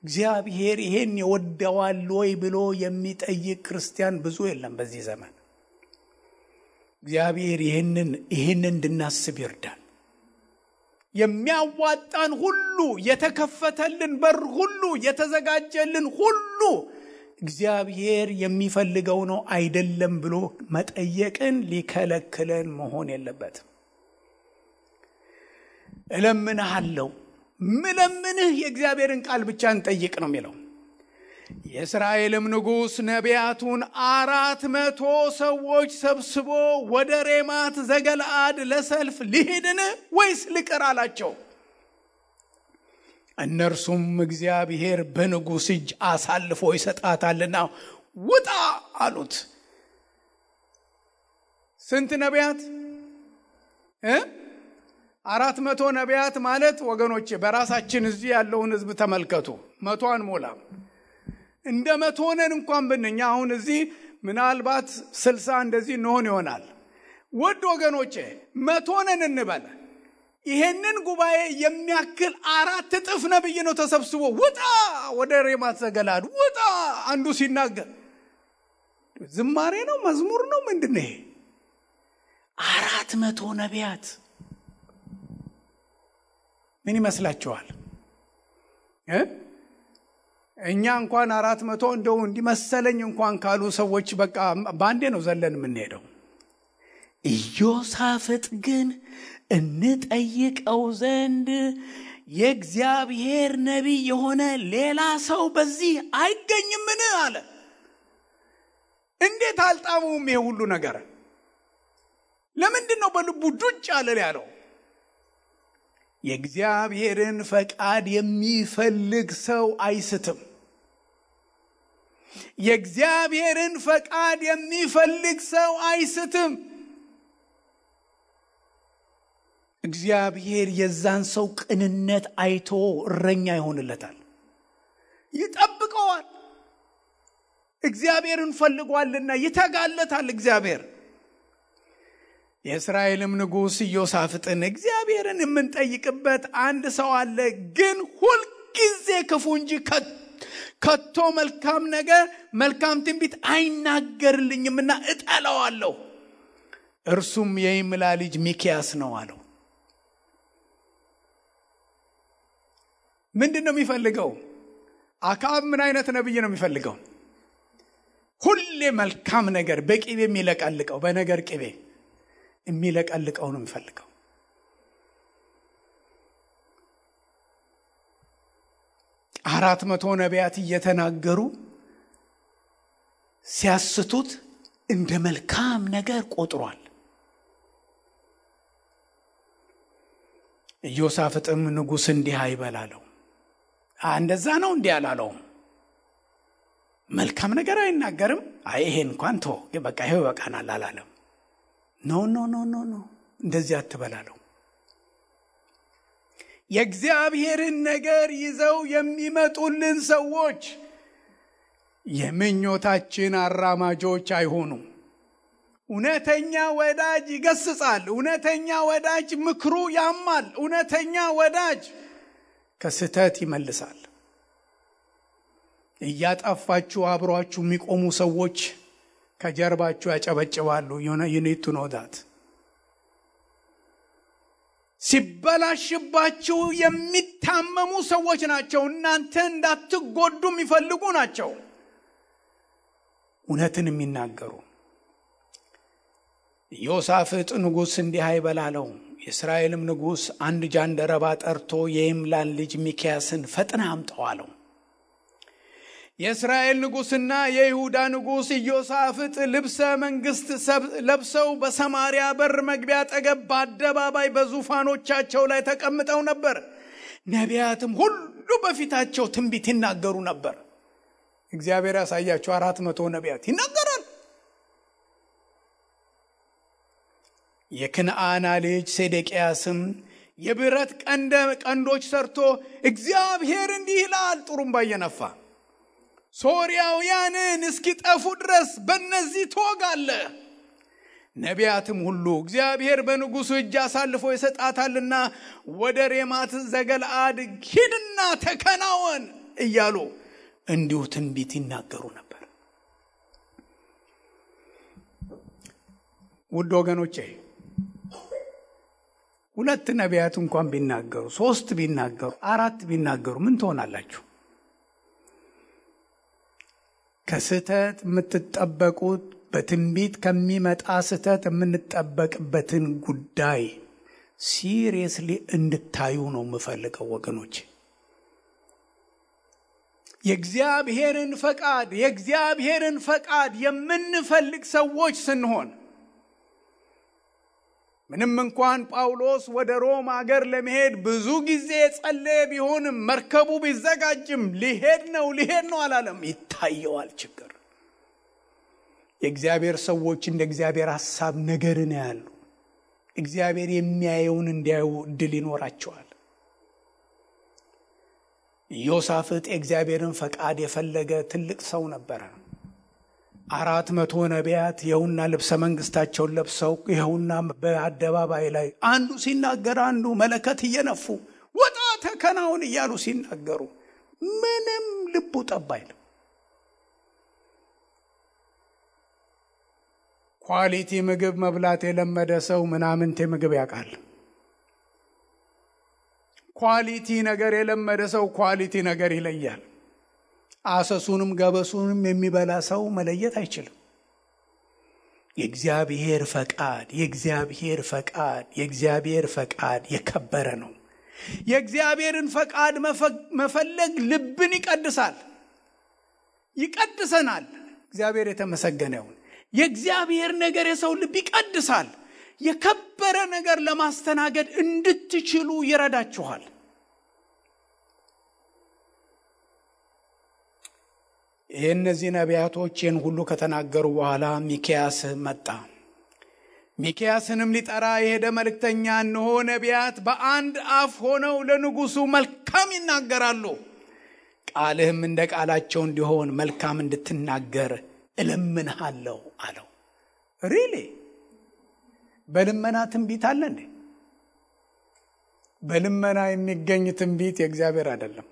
እግዚአብሔር ይሄን ይወደዋል ወይ ብሎ የሚጠይቅ ክርስቲያን ብዙ የለም በዚህ ዘመን። እግዚአብሔር ይሄንን እንድናስብ ይርዳል። የሚያዋጣን ሁሉ፣ የተከፈተልን በር ሁሉ፣ የተዘጋጀልን ሁሉ እግዚአብሔር የሚፈልገው ነው አይደለም ብሎ መጠየቅን ሊከለክለን መሆን የለበትም። እለምንሃለሁ፣ ምለምንህ የእግዚአብሔርን ቃል ብቻ እንጠይቅ ነው የሚለው። የእስራኤልም ንጉሥ ነቢያቱን 400 ሰዎች ሰብስቦ ወደ ሬማት ዘገለዓድ ለሰልፍ ልሂድን ወይስ ልቅር አላቸው። እነርሱም እግዚአብሔር በንጉሥ እጅ አሳልፎ ይሰጣታልና ውጣ አሉት። ስንት ነቢያት? 400 ነቢያት ማለት ወገኖቼ፣ በራሳችን እዚህ ያለውን ሕዝብ ተመልከቱ። 100 አንሞላም። እንደ 100 ነን እንኳን ብንኛ አሁን እዚህ ምናልባት 60 እንደዚህ እንሆን ይሆናል። ውድ ወገኖቼ 100 ነን እንበል። ይሄንን ጉባኤ የሚያክል 4 እጥፍ ነብይ ነው ተሰብስቦ ውጣ ወደ ሬማት ዘገለዓድ ውጣ። አንዱ ሲናገር ዝማሬ ነው መዝሙር ነው ምንድነው ይሄ? 400 ነቢያት ምን ይመስላችኋል? እኛ እንኳን 400 እንደው እንዲመሰለኝ እንኳን ካሉ ሰዎች በቃ ባንዴ ነው ዘለን የምንሄደው። ኢዮሳፍጥ ግን እንጠይቀው ዘንድ የእግዚአብሔር ነቢይ የሆነ ሌላ ሰው በዚህ አይገኝምን አለ። እንዴት አልጣሙም ይሄ ሁሉ ነገር? ለምንድን ነው በልቡ ዱጭ አለ ያለው? የእግዚአብሔርን ፈቃድ የሚፈልግ ሰው አይስትም። የእግዚአብሔርን ፈቃድ የሚፈልግ ሰው አይስትም። እግዚአብሔር የዛን ሰው ቅንነት አይቶ እረኛ ይሆንለታል፣ ይጠብቀዋል። እግዚአብሔርን ፈልጓልና ይተጋለታል እግዚአብሔር። የእስራኤልም ንጉሥ ኢዮሳፍጥን እግዚአብሔርን የምንጠይቅበት አንድ ሰው አለ፣ ግን ሁልጊዜ ክፉ እንጂ ከቶ መልካም ነገር መልካም ትንቢት አይናገርልኝምና እጠላዋለሁ። እርሱም የይምላ ልጅ ሚክያስ ነው አለው። ምንድን ነው የሚፈልገው? አክዓብ ምን አይነት ነብይ ነው የሚፈልገው? ሁሌ መልካም ነገር በቅቤ የሚለቀልቀው፣ በነገር ቅቤ የሚለቀልቀው ነው የሚፈልገው። 400 ነቢያት እየተናገሩ ሲያስቱት እንደ መልካም ነገር ቆጥሯል። ኢዮሳፍጥም ንጉሥ እንዲህ አይበላለው። እንደዛ ነው እንዲህ አላለው። መልካም ነገር አይናገርም። ይሄ እንኳን ተው በቃ ይሄው በቃናል አላለም። ኖ ኖ ኖ ኖ ኖ እንደዚህ አትበላለው። የእግዚአብሔርን ነገር ይዘው የሚመጡልን ሰዎች የምኞታችን አራማጆች አይሆኑ። እውነተኛ ወዳጅ ይገስጻል። እውነተኛ ወዳጅ ምክሩ ያማል። እውነተኛ ወዳጅ ከስተት ይመልሳል። እያጣፋችሁ አብሯችሁ የሚቆሙ ሰዎች ከጀርባችሁ ያጨበጭባሉ። you need to know that። ሲበላሽባችሁ የሚታመሙ ሰዎች ናቸው። እናንተ እንዳትጎዱ የሚፈልጉ ናቸው። እውነትን የሚናገሩ። ኢዮሳፍጥ ንጉሥ እንዲህ አይበላለው። የእስራኤልም ንጉሥ አንድ ጃንደረባ ጠርቶ የይምላን ልጅ ሚክያስን ፈጥነህ አምጣው አለው። የእስራኤል ንጉሥና የይሁዳ ንጉሥ ኢዮሳፍጥ ልብሰ መንግሥት ለብሰው በሰማርያ በር መግቢያ አጠገብ በአደባባይ በዙፋኖቻቸው ላይ ተቀምጠው ነበር። ነቢያትም ሁሉ በፊታቸው ትንቢት ይናገሩ ነበር። እግዚአብሔር ያሳያቸው 400 ነቢያት ይናገራል። የክንዓና ልጅ ሴዴቅያስም የብረት ቀንዶች ሰርቶ እግዚአብሔር እንዲህ ይላል ጥሩምባ እየነፋ ሶርያውያንን እስኪጠፉ ድረስ በእነዚህ ትወጋለህ። ነቢያትም ሁሉ እግዚአብሔር በንጉሡ እጅ አሳልፎ ይሰጣታልና ወደ ሬማት ዘገለዓድ ሂድና ተከናወን እያሉ እንዲሁ ትንቢት ይናገሩ ነበር። ውድ ወገኖቼ 2 ነቢያት እንኳን ቢናገሩ፣ 3 ቢናገሩ፣ 4 ቢናገሩ ምን ትሆናላችሁ? ከስተት የምትጠበቁት በትንቢት ከሚመጣ ስተት የምንጠበቅበትን ጉዳይ ሲሪየስሊ እንድታዩ ነው የምፈልገው ወገኖች። የእግዚአብሔርን ፈቃድ የምንፈልግ ሰዎች ስንሆን ምንም እንኳን ጳውሎስ ወደ ሮም ሀገር ለመሄድ ብዙ ጊዜ ጸለየ ቢሆንም መርከቡ ቢዘጋጅም ሊሄድ ነው አላለም። ይታየዋል ችግር። የእግዚአብሔር ሰዎች እንደ እግዚአብሔር ሐሳብ ነገርን ያያሉ። እግዚአብሔር የሚያየውን እንዲያዩ እድል ይኖራቸዋል። ኢዮሳፍጥ የእግዚአብሔርን ፈቃድ የፈለገ ትልቅ ሰው ነበረ። 400 ነቢያት ይኸውና ልብሰ መንግስታቸውን ለብሰው ይኸውና በአደባባይ ላይ አንዱ ሲናገር አንዱ መለከት እየነፉ ወጣ ተከናውን እያሉ ሲናገሩ ምንም ልቡ ጠብ አይልም። ኳሊቲ ምግብ መብላት የለመደ ሰው ምናምንቴ ምግብ ያውቃል። ኳሊቲ ነገር የለመደ ሰው ኳሊቲ ነገር ይለያል። አሰሱንም ገበሱንም የሚበላ ሰው መለየት አይችልም። የእግዚአብሔር ፈቃድ የከበረ ነው። የእግዚአብሔርን ፈቃድ መፈለግ ልብን ይቀድሰናል። እግዚአብሔር የተመሰገነ ይሁን። የእግዚአብሔር ነገር የሰው ልብ ይቀድሳል። የከበረ ነገር ለማስተናገድ እንድትችሉ ይረዳችኋል። የእነዚህ ነቢያቶች ይህን ሁሉ ከተናገሩ በኋላ ሚክያስ መጣ። ሚክያስንም ሊጠራ የሄደ መልእክተኛ እነሆ ነቢያት በአንድ አፍ ሆነው ለንጉሡ መልካም ይናገራሉ፣ ቃልህም እንደ ቃላቸው እንዲሆን መልካም እንድትናገር እለምንሃለሁ አለው። ሪሊ በልመና ትንቢት አለ እንዴ? በልመና የሚገኝ ትንቢት የእግዚአብሔር አይደለም።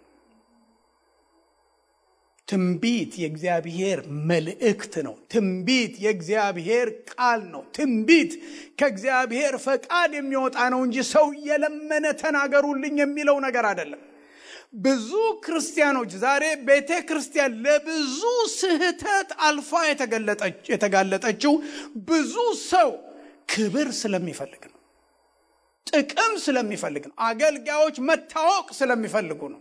ትንቢት የእግዚአብሔር መልእክት ነው። ትንቢት የእግዚአብሔር ቃል ነው። ትንቢት ከእግዚአብሔር ፈቃድ የሚወጣ ነው እንጂ ሰው የለመነ ተናገሩልኝ የሚለው ነገር አይደለም። ብዙ ክርስቲያኖች ዛሬ ቤተ ክርስቲያን ለብዙ ስህተት አልፋ የተጋለጠችው ብዙ ሰው ክብር ስለሚፈልግ ነው። ጥቅም ስለሚፈልግ ነው። አገልጋዮች መታወቅ ስለሚፈልጉ ነው።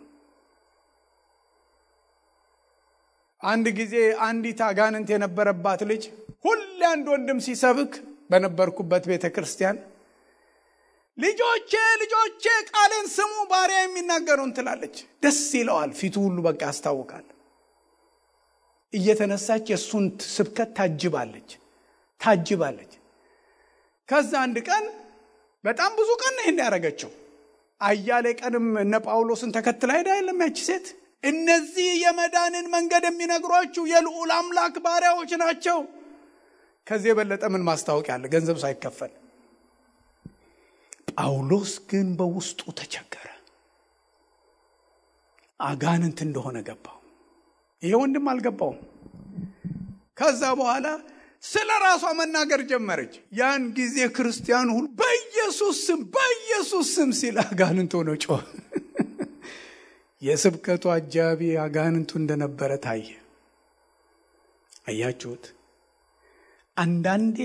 አንድ ጊዜ አንዲት አጋንንት የነበረባት ልጅ ሁሌ አንድ ወንድም ሲሰብክ በነበርኩበት ቤተ ክርስቲያን ልጆቼ ቃሌን ስሙ ባሪያ የሚናገሩን ትላለች። ደስ ይለዋል። ፊቱ ሁሉ በቃ ያስታውቃል። እየተነሳች የሱን ስብከት ታጅባለች። ከዛ አንድ ቀን በጣም ብዙ ቀን ነው ያደረገችው። አያሌ ቀንም እነ ጳውሎስን ተከትላ ሄዳ አይደለም ያቺ ሴት እነዚህ የመዳንን መንገድ የሚነግሯችሁ የልዑል አምላክ ባሪያዎች ናቸው። ከዚህ የበለጠ ምን ማስታወቂያ አለ? ገንዘብ ሳይከፈል። ጳውሎስ ግን በውስጡ ተቸገረ። አጋንንት እንደሆነ ገባው። ይሄ ወንድም አልገባውም። ከዛ በኋላ ስለ ራሷ መናገር ጀመረች። ያን ጊዜ ክርስቲያኑ ሁሉ በኢየሱስ ስም ሲል አጋንንት ሆኖ ጮኸ። የስብከቱ አጃቢ አጋንንቱ እንደነበረ ታየ። አያችሁት? አንዳንዴ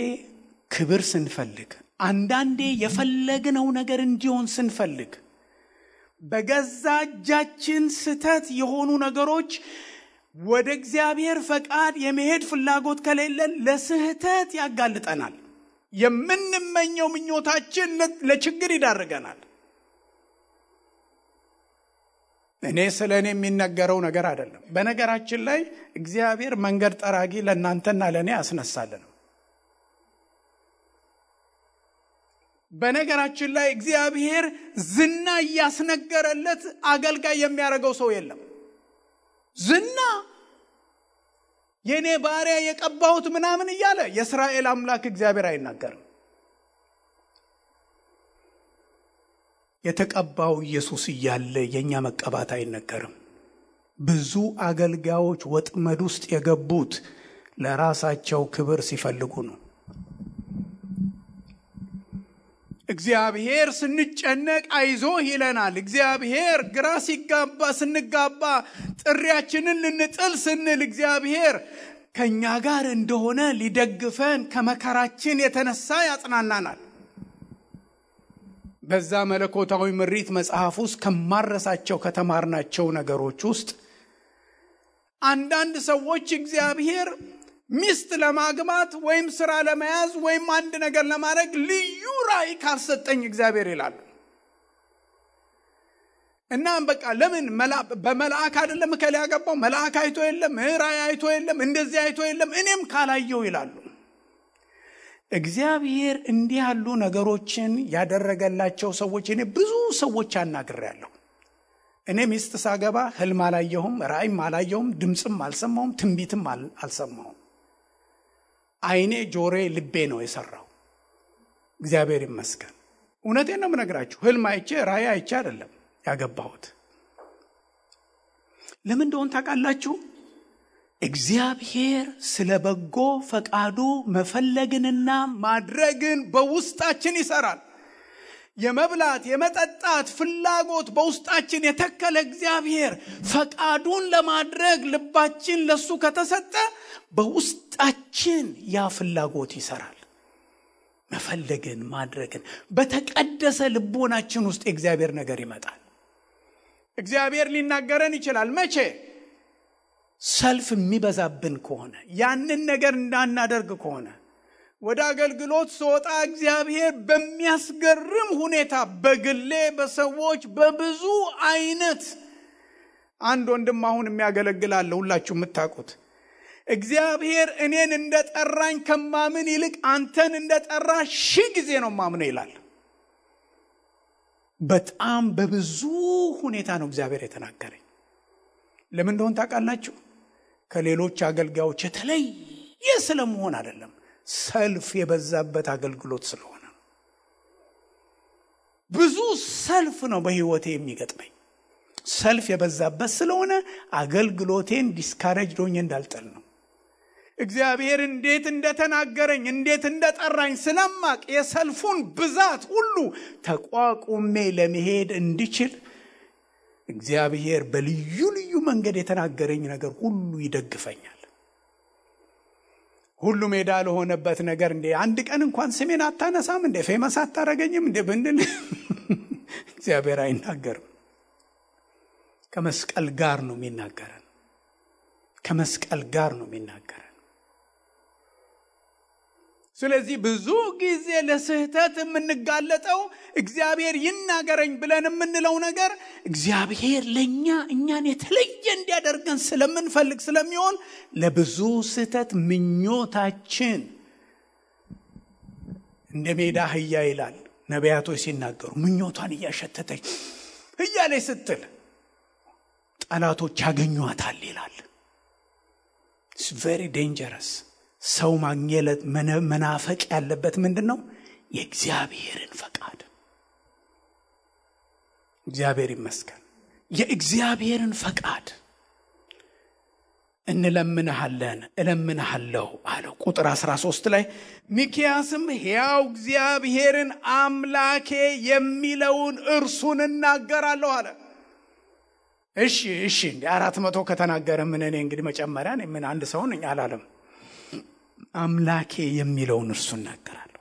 ክብር ስንፈልግ፣ አንዳንዴ የፈለግነው ነገር እንዲሆን ስንፈልግ በገዛ እጃችን ስተት የሆኑ ነገሮች ወደ እግዚአብሔር ፈቃድ የመሄድ ፍላጎት ከሌለን ለስህተት ያጋልጠናል። የምንመኘው ምኞታችን ለችግር ይዳርገናል። እኔ ስለኔ የሚነገረው ነገር አይደለም። በነገራችን ላይ እግዚአብሔር መንገድ ጠራጊ ለእናንተና ለኔ ያስነሳልን። በነገራችን ላይ እግዚአብሔር ዝና ያስነገረለት አገልጋይ የሚያደርገው ሰው የለም። ዝና የኔ ባሪያ የቀባሁት ምናምን እያለ የእስራኤል አምላክ እግዚአብሔር አይናገርም። የተቀባው ኢየሱስ እያለ የኛ መቀባት አይነገርም። ብዙ አገልጋዮች ወጥመድ ውስጥ የገቡት ለራሳቸው ክብር ሲፈልጉ ነው። እግዚአብሔር ስንጨነቅ አይዞህ ይለናል። እግዚአብሔር ግራ ስንጋባ ጥሪያችንን ልንጥል ስንል እግዚአብሔር ከኛ ጋር እንደሆነ ሊደግፈን ከመከራችን የተነሳ ያጽናናናል። በዛ መለኮታዊ ምሪት መጽሐፍ ውስጥ ከማረሳቸው ከተማርናቸው ነገሮች ውስጥ አንዳንድ ሰዎች እግዚአብሔር ሚስት ለማግባት ወይም ስራ ለመያዝ ወይም አንድ ነገር ለማድረግ ልዩ ራእይ ካልሰጠኝ እግዚአብሔር ይላሉ። እና በቃ ለምን በመልአክ አይደለም ከለ ያገባው መልአክ አይቶ የለም ራእይ አይቶ የለም እንደዚህ አይቶ የለም እኔም ካላየው ይላሉ። እግዚአብሔር እንዲህ ያሉ ነገሮችን ያደረገላቸው ሰዎች እኔ ብዙ ሰዎች አናግሬያለሁ። እኔ ሚስት ሳገባ ህልም አላየሁም፣ ራእይም አላየሁም፣ ድምጽም አልሰማሁም፣ ትንቢትም አልሰማሁም። አይኔ ጆሮዬ ልቤ ነው የሰራው። እግዚአብሔር ይመስገን። እውነቴን ነው የምነግራችሁ። ህልም አይቼ ራእይ አይቼ አይደለም ያገባሁት። ለምን እንደሆነ ታውቃላችሁ? እግዚአብሔር ስለ በጎ ፈቃዱ መፈለግንና ማድረግን በውስጣችን ይሰራል። የመብላት የመጠጣት ፍላጎት በውስጣችን የተከለ እግዚአብሔር ፈቃዱን ለማድረግ ልባችን ለሱ ከተሰጠ በውስጣችን ያ ፍላጎት ይሰራል። መፈለግን ማድረግን በተቀደሰ ልቦናችን ውስጥ የእግዚአብሔር ነገር ይመጣል። እግዚአብሔር ሊናገረን ይችላል። መቼ? ሰልፍ የሚበዛብን ከሆነ፣ ያንን ነገር እንዳናደርግ ከሆነ። ወደ አገልግሎት ስወጣ እግዚአብሔር በሚያስገርም ሁኔታ በግሌ በሰዎች በብዙ አይነት አንድ ወንድም አሁን የሚያገለግላል ሁላችሁ የምታውቁት እግዚአብሔር እኔን እንደጠራኝ ከማምን ይልቅ አንተን እንደጠራ 1000 ጊዜ ነው ማምነው ይላል። በጣም በብዙ ሁኔታ ነው እግዚአብሔር የተናገረኝ። ለምን እንደሆነ ታውቃላችሁ? ከሌሎች አገልጋዮች የተለየ ስለመሆን አይደለም፣ ሰልፍ የበዛበት አገልግሎት ስለሆነ። ብዙ ሰልፍ ነው በህይወቴ የሚገጥመኝ። ሰልፍ የበዛበት ስለሆነ አገልግሎቴን ዲስካሬጅ ሆኜ እንዳልጠል ነው። እግዚአብሔር እንዴት እንደተናገረኝ እንዴት እንደጠራኝ ስለማቅ የሰልፉን ብዛት ሁሉ ተቋቁሜ ለመሄድ እንድችል እግዚአብሔር በልዩ ልዩ መንገድ የተናገረኝ ነገር ሁሉ ይደግፈኛል። ሁሉ ሜዳ ለሆነበት ነገር እንዴ አንድ ቀን እንኳን ስሜን አታነሳም እንዴ ፌመስ አታረገኝም እንዴ ብንል እግዚአብሔር አይናገርም። ከመስቀል ጋር ነው የሚናገረን። ከመስቀል ጋር ነው የሚናገረን። ስለዚህ ብዙ ጊዜ ለስህተት የምንጋለጠው እግዚአብሔር ይናገረኝ ብለን የምንለው ነገር እግዚአብሔር ለኛ እኛን የተለየ እንዲያደርገን ስለምንፈልግ ስለሚሆን ለብዙ ስህተት ምኞታችን እንደ ሜዳ አህያ ይላል ነቢያቶች ሲናገሩ ምኞቷን እያሸተተች እያለች ስትል ጠላቶች ያገኟታል ይላል። It's very dangerous. ሰው ማግኘት መናፈቅ ያለበት ምንድነው? የእግዚአብሔርን ፈቃድ። እግዚአብሔር ይመስገን። የእግዚአብሔርን ፈቃድ እንለምንሃለን እለምንሃለሁ አለው። ቁጥር 13 ላይ ሚክያስም ሕያው እግዚአብሔርን አምላኬ የሚለውን እርሱን እናገራለሁ አለ። እሺ እንዴ 400 ከተናገረ ምን እኔ እንግዲህ መጨመሪያ ነኝ? ምን አንድ ሰው ነኝ አላለም። አምላኬ የሚለውን እርሱን እናገራለሁ።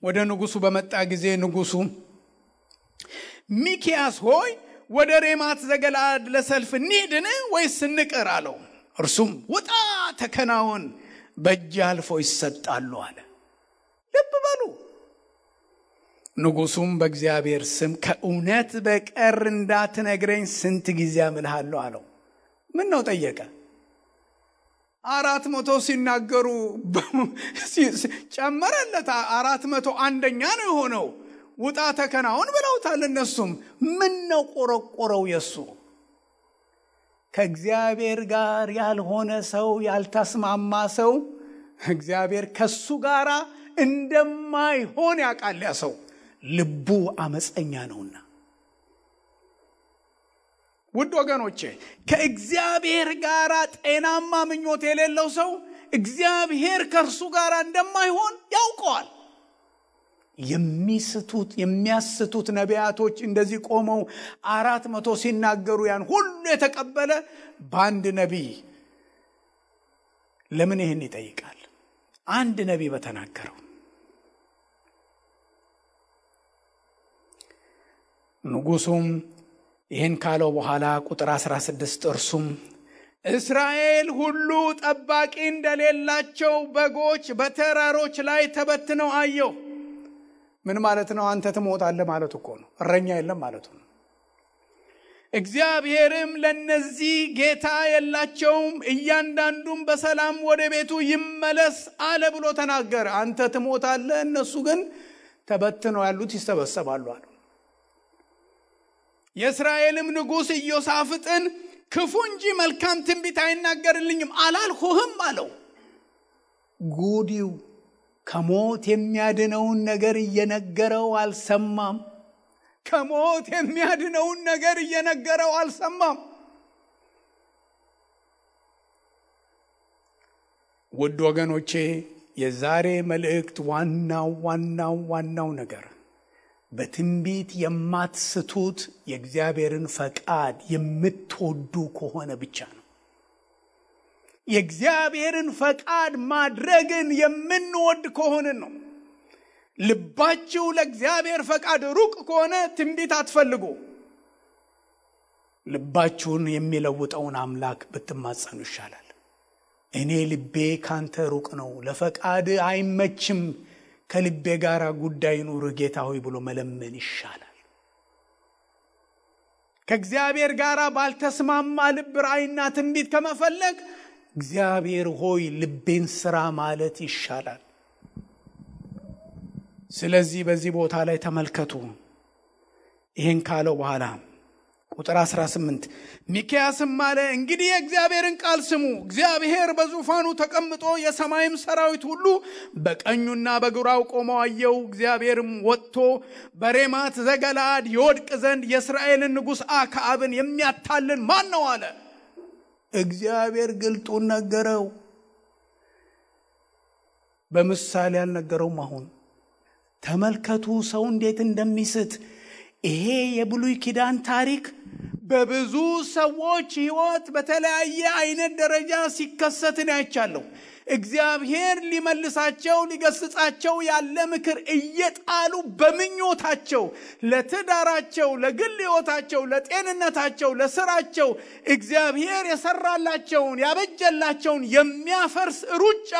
ወደ ንጉሱ በመጣ ጊዜ ንጉሱ ሚክያስ ሆይ ወደ ሬማት ዘገለዓድ ለሰልፍ እንሂድን ወይስ እንቅር አለው። እርሱም ውጣ ተከናወን፣ በእጅ አልፎ ይሰጣሉ አለ። ልብ በሉ። ንጉሱም በእግዚአብሔር ስም ከእውነት በቀር እንዳትነግረኝ ስንት ጊዜ አምልሃለሁ አለው። ምን ነው ጠየቀ? 400 ሲናገሩ ጨመረለት። 401ኛ ነው የሆነው። ውጣ ተከናወን ብለውታል እነሱም። ምን ነው ቆረቆረው የሱ? ከእግዚአብሔር ጋር ያልሆነ ሰው ያልተስማማ ሰው እግዚአብሔር ከሱ ጋር እንደማይሆን ያውቃል። ያ ሰው ልቡ አመፀኛ ነውና። ውድ ወገኖቼ ከእግዚአብሔር ጋር ጤናማ ምኞት የሌለው ሰው እግዚአብሔር ከርሱ ጋር እንደማይሆን ያውቀዋል። የሚያስቱት ነቢያቶች እንደዚህ ቆመው 400 ሲናገሩ ያን ሁሉ የተቀበለ በአንድ ነቢይ ለምን ይሄን ይጠይቃል? አንድ ነቢይ በተናገረው። ንጉሱም ይህን ካለው በኋላ ቁጥር 16 እርሱም እስራኤል ሁሉ ጠባቂ እንደሌላቸው በጎች በተራሮች ላይ ተበትነው አየሁ። ምን ማለት ነው? አንተ ትሞታለህ ማለት እኮ ነው። እረኛ የለም ማለት ነው። እግዚአብሔርም ለነዚህ ጌታ የላቸውም፣ እያንዳንዱም በሰላም ወደ ቤቱ ይመለስ አለ ብሎ ተናገረ። አንተ ትሞታለህ፣ እነሱ ግን ተበትነው ያሉት ይሰበሰባሉ አለ። የእስራኤልም ንጉሥ ኢዮሳፍጥን ክፉ እንጂ መልካም ትንቢት አይናገርልኝም አላልሁህም አለው። ጉዲው ከሞት የሚያድነውን ነገር እየነገረው አልሰማም። ከሞት የሚያድነውን ነገር እየነገረው አልሰማም። ውድ ወገኖቼ የዛሬ መልእክት ዋናው ነገር በትንቢት የማትስቱት የእግዚአብሔርን ፈቃድ የምትወዱ ከሆነ ብቻ ነው። የእግዚአብሔርን ፈቃድ ማድረግን የምንወድ ከሆነ ነው። ልባችሁ ለእግዚአብሔር ፈቃድ ሩቅ ከሆነ ትንቢት አትፈልጉ። ልባችሁን የሚለውጠውን አምላክ ብትማጸኑ ይሻላል። እኔ ልቤ ካንተ ሩቅ ነው፣ ለፈቃድ አይመችም፣ ከልቤ ጋር ጉዳይ ኑር ጌታ ሆይ ብሎ መለመን ይሻላል። ከእግዚአብሔር ጋር ባልተስማማ ልብ ራእይና ትንቢት ከመፈለግ እግዚአብሔር ሆይ ልቤን ስራ ማለት ይሻላል። ስለዚህ በዚህ ቦታ ላይ ተመልከቱ። ይህን ካለው በኋላ ቁጥር 18 ሚክያስም አለ እንግዲህ የእግዚአብሔርን ቃል ስሙ። እግዚአብሔር በዙፋኑ ተቀምጦ የሰማይም ሰራዊት ሁሉ በቀኙና በግራው ቆመው አየው። እግዚአብሔርም ወጥቶ በሬማት ዘገለዓድ ይወድቅ ዘንድ የእስራኤልን ንጉሥ አክዓብን የሚያታልን ማን ነው አለ። እግዚአብሔር ግልጡን ነገረው። በምሳሌ አልነገረውም። አሁን ተመልከቱ ሰው እንዴት እንደሚስት። ይሄ የብሉይ ኪዳን ታሪክ በብዙ ሰዎች ሕይወት በተለያየ አይነት ደረጃ ሲከሰትን አይቻለሁ። እግዚአብሔር ሊመልሳቸው ሊገስጻቸው ያለ ምክር እየጣሉ በምኞታቸው ለትዳራቸው፣ ለግል ሕይወታቸው፣ ለጤንነታቸው፣ ለስራቸው እግዚአብሔር የሰራላቸውን ያበጀላቸውን የሚያፈርስ ሩጫ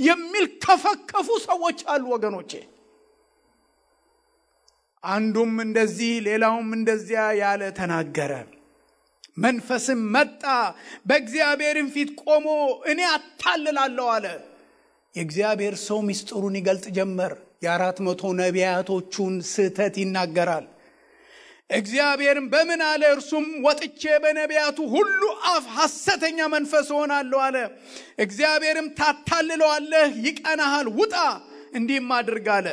የሚልከፈከፉ ሰዎች አሉ ወገኖቼ። አንዱም እንደዚህ ሌላውም እንደዚያ ያለ ተናገረ። መንፈስም መጣ በእግዚአብሔርም ፊት ቆሞ እኔ አታልላለሁ አለ። የእግዚአብሔር ሰው ምስጢሩን ይገልጥ ጀመር። የ400 ነቢያቶቹን ስህተት ይናገራል። እግዚአብሔርም በምን አለ? እርሱም ወጥቼ በነቢያቱ ሁሉ አፍ ሐሰተኛ መንፈስ ሆናለሁ አለ። እግዚአብሔርም ታታልለዋለህ፣ ይቀናሃል፣ ውጣ እንዲህም አድርግ አለ።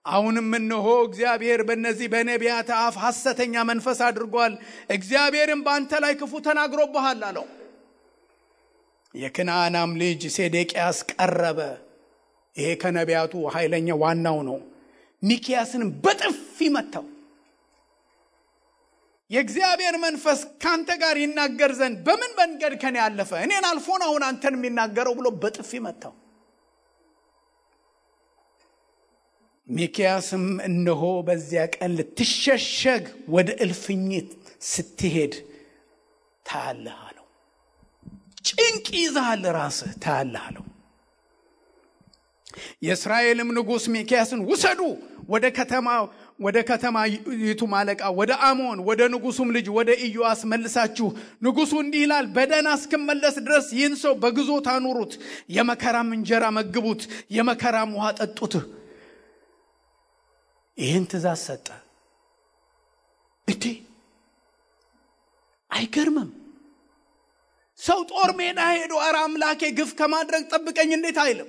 አሁንም እነሆ እግዚአብሔር በእነዚህ በነቢያት አፍ ሐሰተኛ መንፈስ አድርጓል። እግዚአብሔርም በአንተ ላይ ክፉ ተናግሮብሃል አለው። የክንዓናም ልጅ ሴዴቅያስ ቀረበ። ይሄ ከነቢያቱ ኃይለኛ ዋናው ነው። ሚክያስንም በጥፊ መታው። የእግዚአብሔር መንፈስ ካንተ ጋር ይናገር ዘንድ በምን መንገድ ከኔ ያለፈ? እኔን አልፎን አሁን አንተን የሚናገረው ብሎ በጥፊ መታው። ሚክያስም እነሆ በዚያ ቀን ልትሸሸግ ወደ እልፍኝት ስትሄድ ታያለህ አለው። ጭንቅ ይዛል ራስህ ታያለህ አለው። የእስራኤልም ንጉሥ ሚክያስን ውሰዱ ወደ ከተማይቱ አለቃ ወደ አሞን ወደ ንጉሱም ልጅ ወደ ኢዮአስ መልሳችሁ ንጉሱ እንዲህ ይላል በደህና እስክመለስ ድረስ ይህን ሰው በግዞት አኑሩት፣ የመከራም እንጀራ መግቡት፣ የመከራም ውሃ ጠጡት። ይህን ትእዛዝ ሰጠ። አይገርምም? ሰው ጦር ሜዳ ሄዶ ኧረ አምላኬ ግፍ ከማድረግ ጠብቀኝ እንዴት አይልም?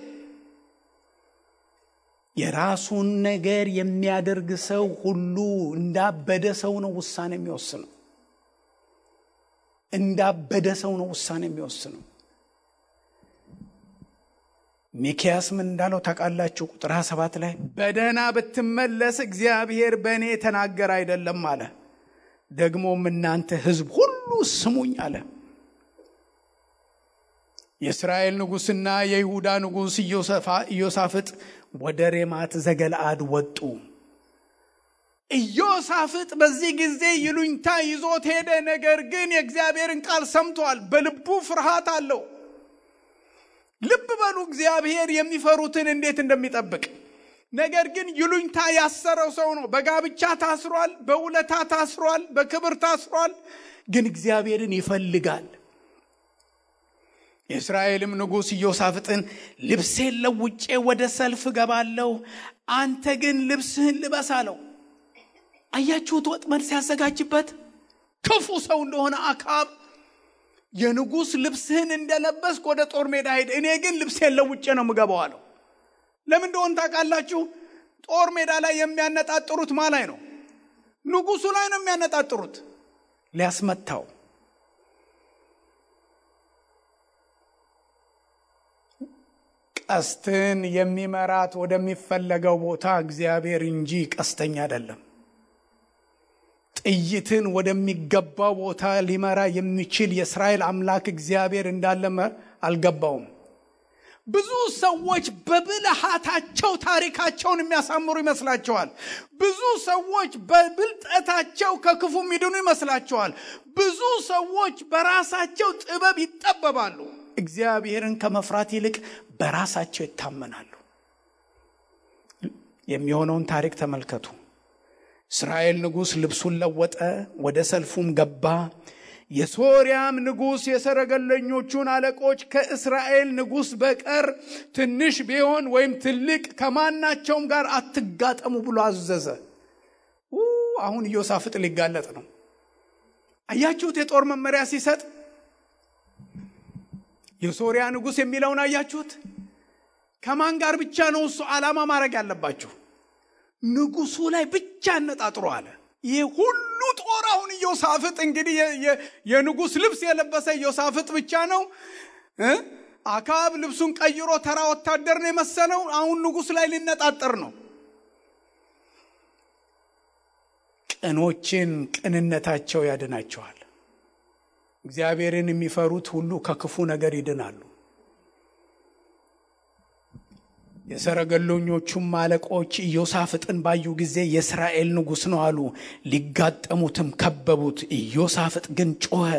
የራሱን ነገር የሚያደርግ ሰው ሁሉ እንዳበደ ሰው ነው ውሳኔ የሚወስነው። እንዳበደ ሰው ነው ውሳኔ የሚወስነው። ሚክያስ ምን እንዳለው ታውቃላችሁ? ቁጥር 7 ላይ በደህና ብትመለስ እግዚአብሔር በእኔ ተናገረ አይደለም አለ። ደግሞም እናንተ ሕዝብ ሁሉ ስሙኝ አለ። የእስራኤል ንጉሥና የይሁዳ ንጉሥ ኢዮሳፍጥ ወደ ሬማት ዘገለዓድ ወጡ። ኢዮሳፍጥ በዚህ ጊዜ ይሉኝታ ይዞት ሄደ። ነገር ግን የእግዚአብሔርን ቃል ሰምቷል። በልቡ ፍርሃት አለው። ልብ በሉ እግዚአብሔር የሚፈሩትን እንዴት እንደሚጠብቅ። ነገር ግን ይሉኝታ ያሰረው ሰው ነው። በጋብቻ ታስሯል፣ በውለታ ታስሯል፣ በክብር ታስሯል። ግን እግዚአብሔርን ይፈልጋል። የእስራኤልም ንጉሥ ኢዮሳፍጥን ልብሴን ለውጬ ወደ ሰልፍ ገባለሁ፣ አንተ ግን ልብስህን ልበስ አለው። አያችሁት ወጥመድ ሲያዘጋጅበት ክፉ ሰው እንደሆነ አክዓብ የንጉሥ ልብስህን እንደለበስክ ወደ ጦር ሜዳ ሄድ፣ እኔ ግን ልብሴን ለውጬ ነው የምገባው አለው። ለምን እንደሆነ ታውቃላችሁ? ጦር ሜዳ ላይ የሚያነጣጥሩት ማን ላይ ነው? ንጉሱ ላይ ነው የሚያነጣጥሩት፣ ሊያስመታው። ቀስትን የሚመራት ወደሚፈለገው ቦታ እግዚአብሔር እንጂ ቀስተኛ አይደለም። ጥይትን ወደሚገባው ቦታ ሊመራ የሚችል የእስራኤል አምላክ እግዚአብሔር እንዳለ አልገባውም። ብዙ ሰዎች በብልሃታቸው ታሪካቸውን የሚያሳምሩ ይመስላቸዋል። ብዙ ሰዎች በብልጠታቸው ከክፉ የሚድኑ ይመስላቸዋል። ብዙ ሰዎች በራሳቸው ጥበብ ይጠበባሉ። እግዚአብሔርን ከመፍራት ይልቅ በራሳቸው ይታመናሉ። የሚሆነውን ታሪክ ተመልከቱ። እስራኤል ንጉሥ ልብሱን ለወጠ፣ ወደ ሰልፉም ገባ። የሶርያም ንጉሥ የሰረገለኞቹን አለቆች ከእስራኤል ንጉሥ በቀር ትንሽ ቢሆን ወይም ትልቅ ከማናቸውም ጋር አትጋጠሙ ብሎ አዘዘ። አሁን ኢዮሳፍጥ ሊጋለጥ ነው። አያችሁት? የጦር መመሪያ ሲሰጥ የሶርያ ንጉሥ የሚለውን አያችሁት? ከማን ጋር ብቻ ነው እሱ ዓላማ ማድረግ ያለባችሁ? ንጉሱ ላይ ብቻ አነጣጥሮ አለ። ይህ ሁሉ ጦር አሁን ኢዮሳፍጥ እንግዲህ የንጉስ ልብስ የለበሰ ኢዮሳፍጥ ብቻ ነው። አካብ ልብሱን ቀይሮ ተራ ወታደር ነው የመሰለው። አሁን ንጉስ ላይ ሊነጣጠር ነው። ቅኖችን ቅንነታቸው ያድናቸዋል። እግዚአብሔርን የሚፈሩት ሁሉ ከክፉ ነገር ይድናሉ። የሰረገሎኞቹም አለቆች ኢዮሳፍጥን ባዩ ጊዜ የእስራኤል ንጉሥ ነው አሉ። ሊጋጠሙትም ከበቡት። ኢዮሳፍጥ ግን ጮኸ፣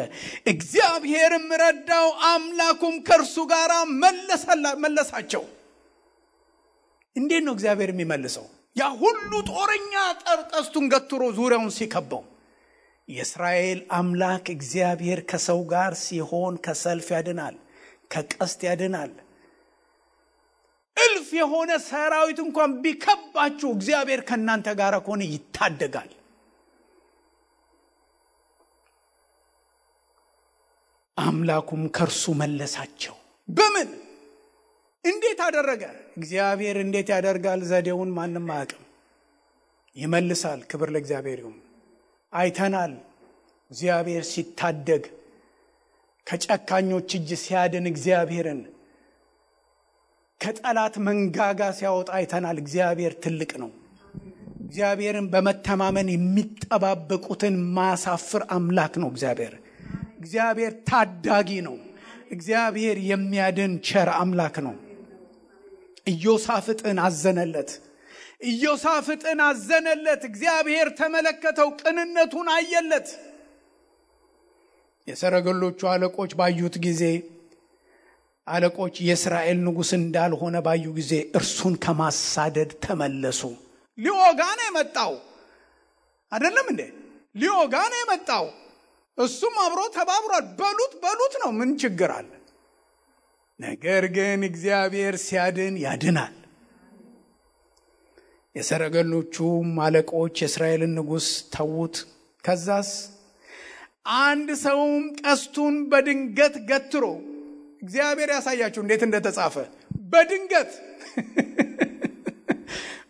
እግዚአብሔርም ረዳው፣ አምላኩም ከእርሱ ጋር መለሳቸው። እንዴት ነው እግዚአብሔር የሚመልሰው? ያ ሁሉ ጦረኛ ቀስቱን ገትሮ ዙሪያውን ሲከበው፣ የእስራኤል አምላክ እግዚአብሔር ከሰው ጋር ሲሆን ከሰልፍ ያድናል፣ ከቀስት ያድናል። እልፍ የሆነ ሰራዊት እንኳን ቢከባችሁ እግዚአብሔር ከናንተ ጋር ከሆነ ይታደጋል። አምላኩም ከርሱ መለሳቸው። በምን እንዴት አደረገ? እግዚአብሔር እንዴት ያደርጋል? ዘዴውን ማንም አያውቅም። ይመልሳል። ክብር ለእግዚአብሔር ይሁን። አይተናል። እግዚአብሔር ሲታደግ ከጨካኞች እጅ ሲያድን እግዚአብሔርን ከጠላት መንጋጋ ሲያወጣ አይተናል። እግዚአብሔር ትልቅ ነው። እግዚአብሔርን በመተማመን የሚጠባበቁትን ማሳፍር አምላክ ነው። እግዚአብሔር ታዳጊ ነው። እግዚአብሔር የሚያድን ቸር አምላክ ነው። ኢዮሳፍጥን አዘነለት። እግዚአብሔር ተመለከተው፣ ቅንነቱን አየለት። የሰረገሎቹ አለቆች ባዩት ጊዜ የእስራኤል ንጉሥ እንዳልሆነ ባዩ ጊዜ እርሱን ከማሳደድ ተመለሱ። ሊወጋ ነው የመጣው አይደለም እንዴ? ሊወጋ ነው የመጣው። እሱም አብሮ ተባብሯል። በሉት ነው። ምን ችግር አለ? ነገር ግን እግዚአብሔር ሲያድን ያድናል። የሰረገሎቹም አለቆች የእስራኤልን ንጉሥ ተዉት። ከዛስ አንድ ሰውም ቀስቱን በድንገት ገትሮ፣ እግዚአብሔር ያሳያችሁ እንዴት እንደተጻፈ በድንገት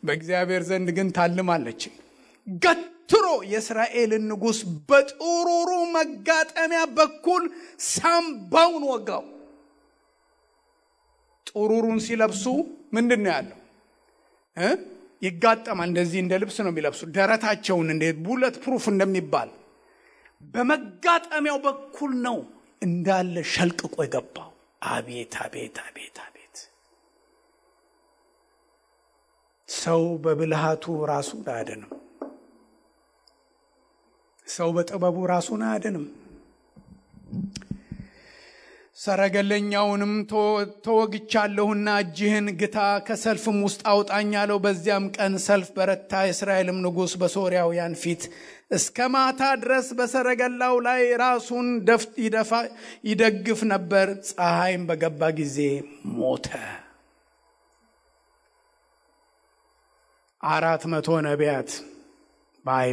በእግዚአብሔር ዘንድ ግን ታልማለች። ገትሮ የእስራኤልን ንጉሥ በጥሩሩ መጋጠሚያ በኩል ሳምባውን ወጋው። ጥሩሩን ሲለብሱ ምንድን ነው ያለው? ይጋጠማል። እንደዚህ እንደ ልብስ ነው የሚለብሱ። ደረታቸውን እንደ ቡለት ፕሩፍ እንደሚባል በመጋጠሚያው በኩል ነው እንዳለ ሸልቅቆ የገባው። አቤት አቤት አቤት አቤት! ሰው በብልሃቱ ራሱን አያድንም። ሰው በጥበቡ ራሱን አያድንም። ሰረገለኛውንም ተወግቻለሁና እጅህን ግታ፣ ከሰልፍም ውስጥ አውጣኝ አለው። በዚያም ቀን ሰልፍ በረታ። የእስራኤልም ንጉሥ በሶርያውያን ፊት እስከ ማታ ድረስ በሰረገላው ላይ ራሱን ይደግፍ ነበር። ፀሐይም በገባ ጊዜ ሞተ። 400 ነቢያት ባይ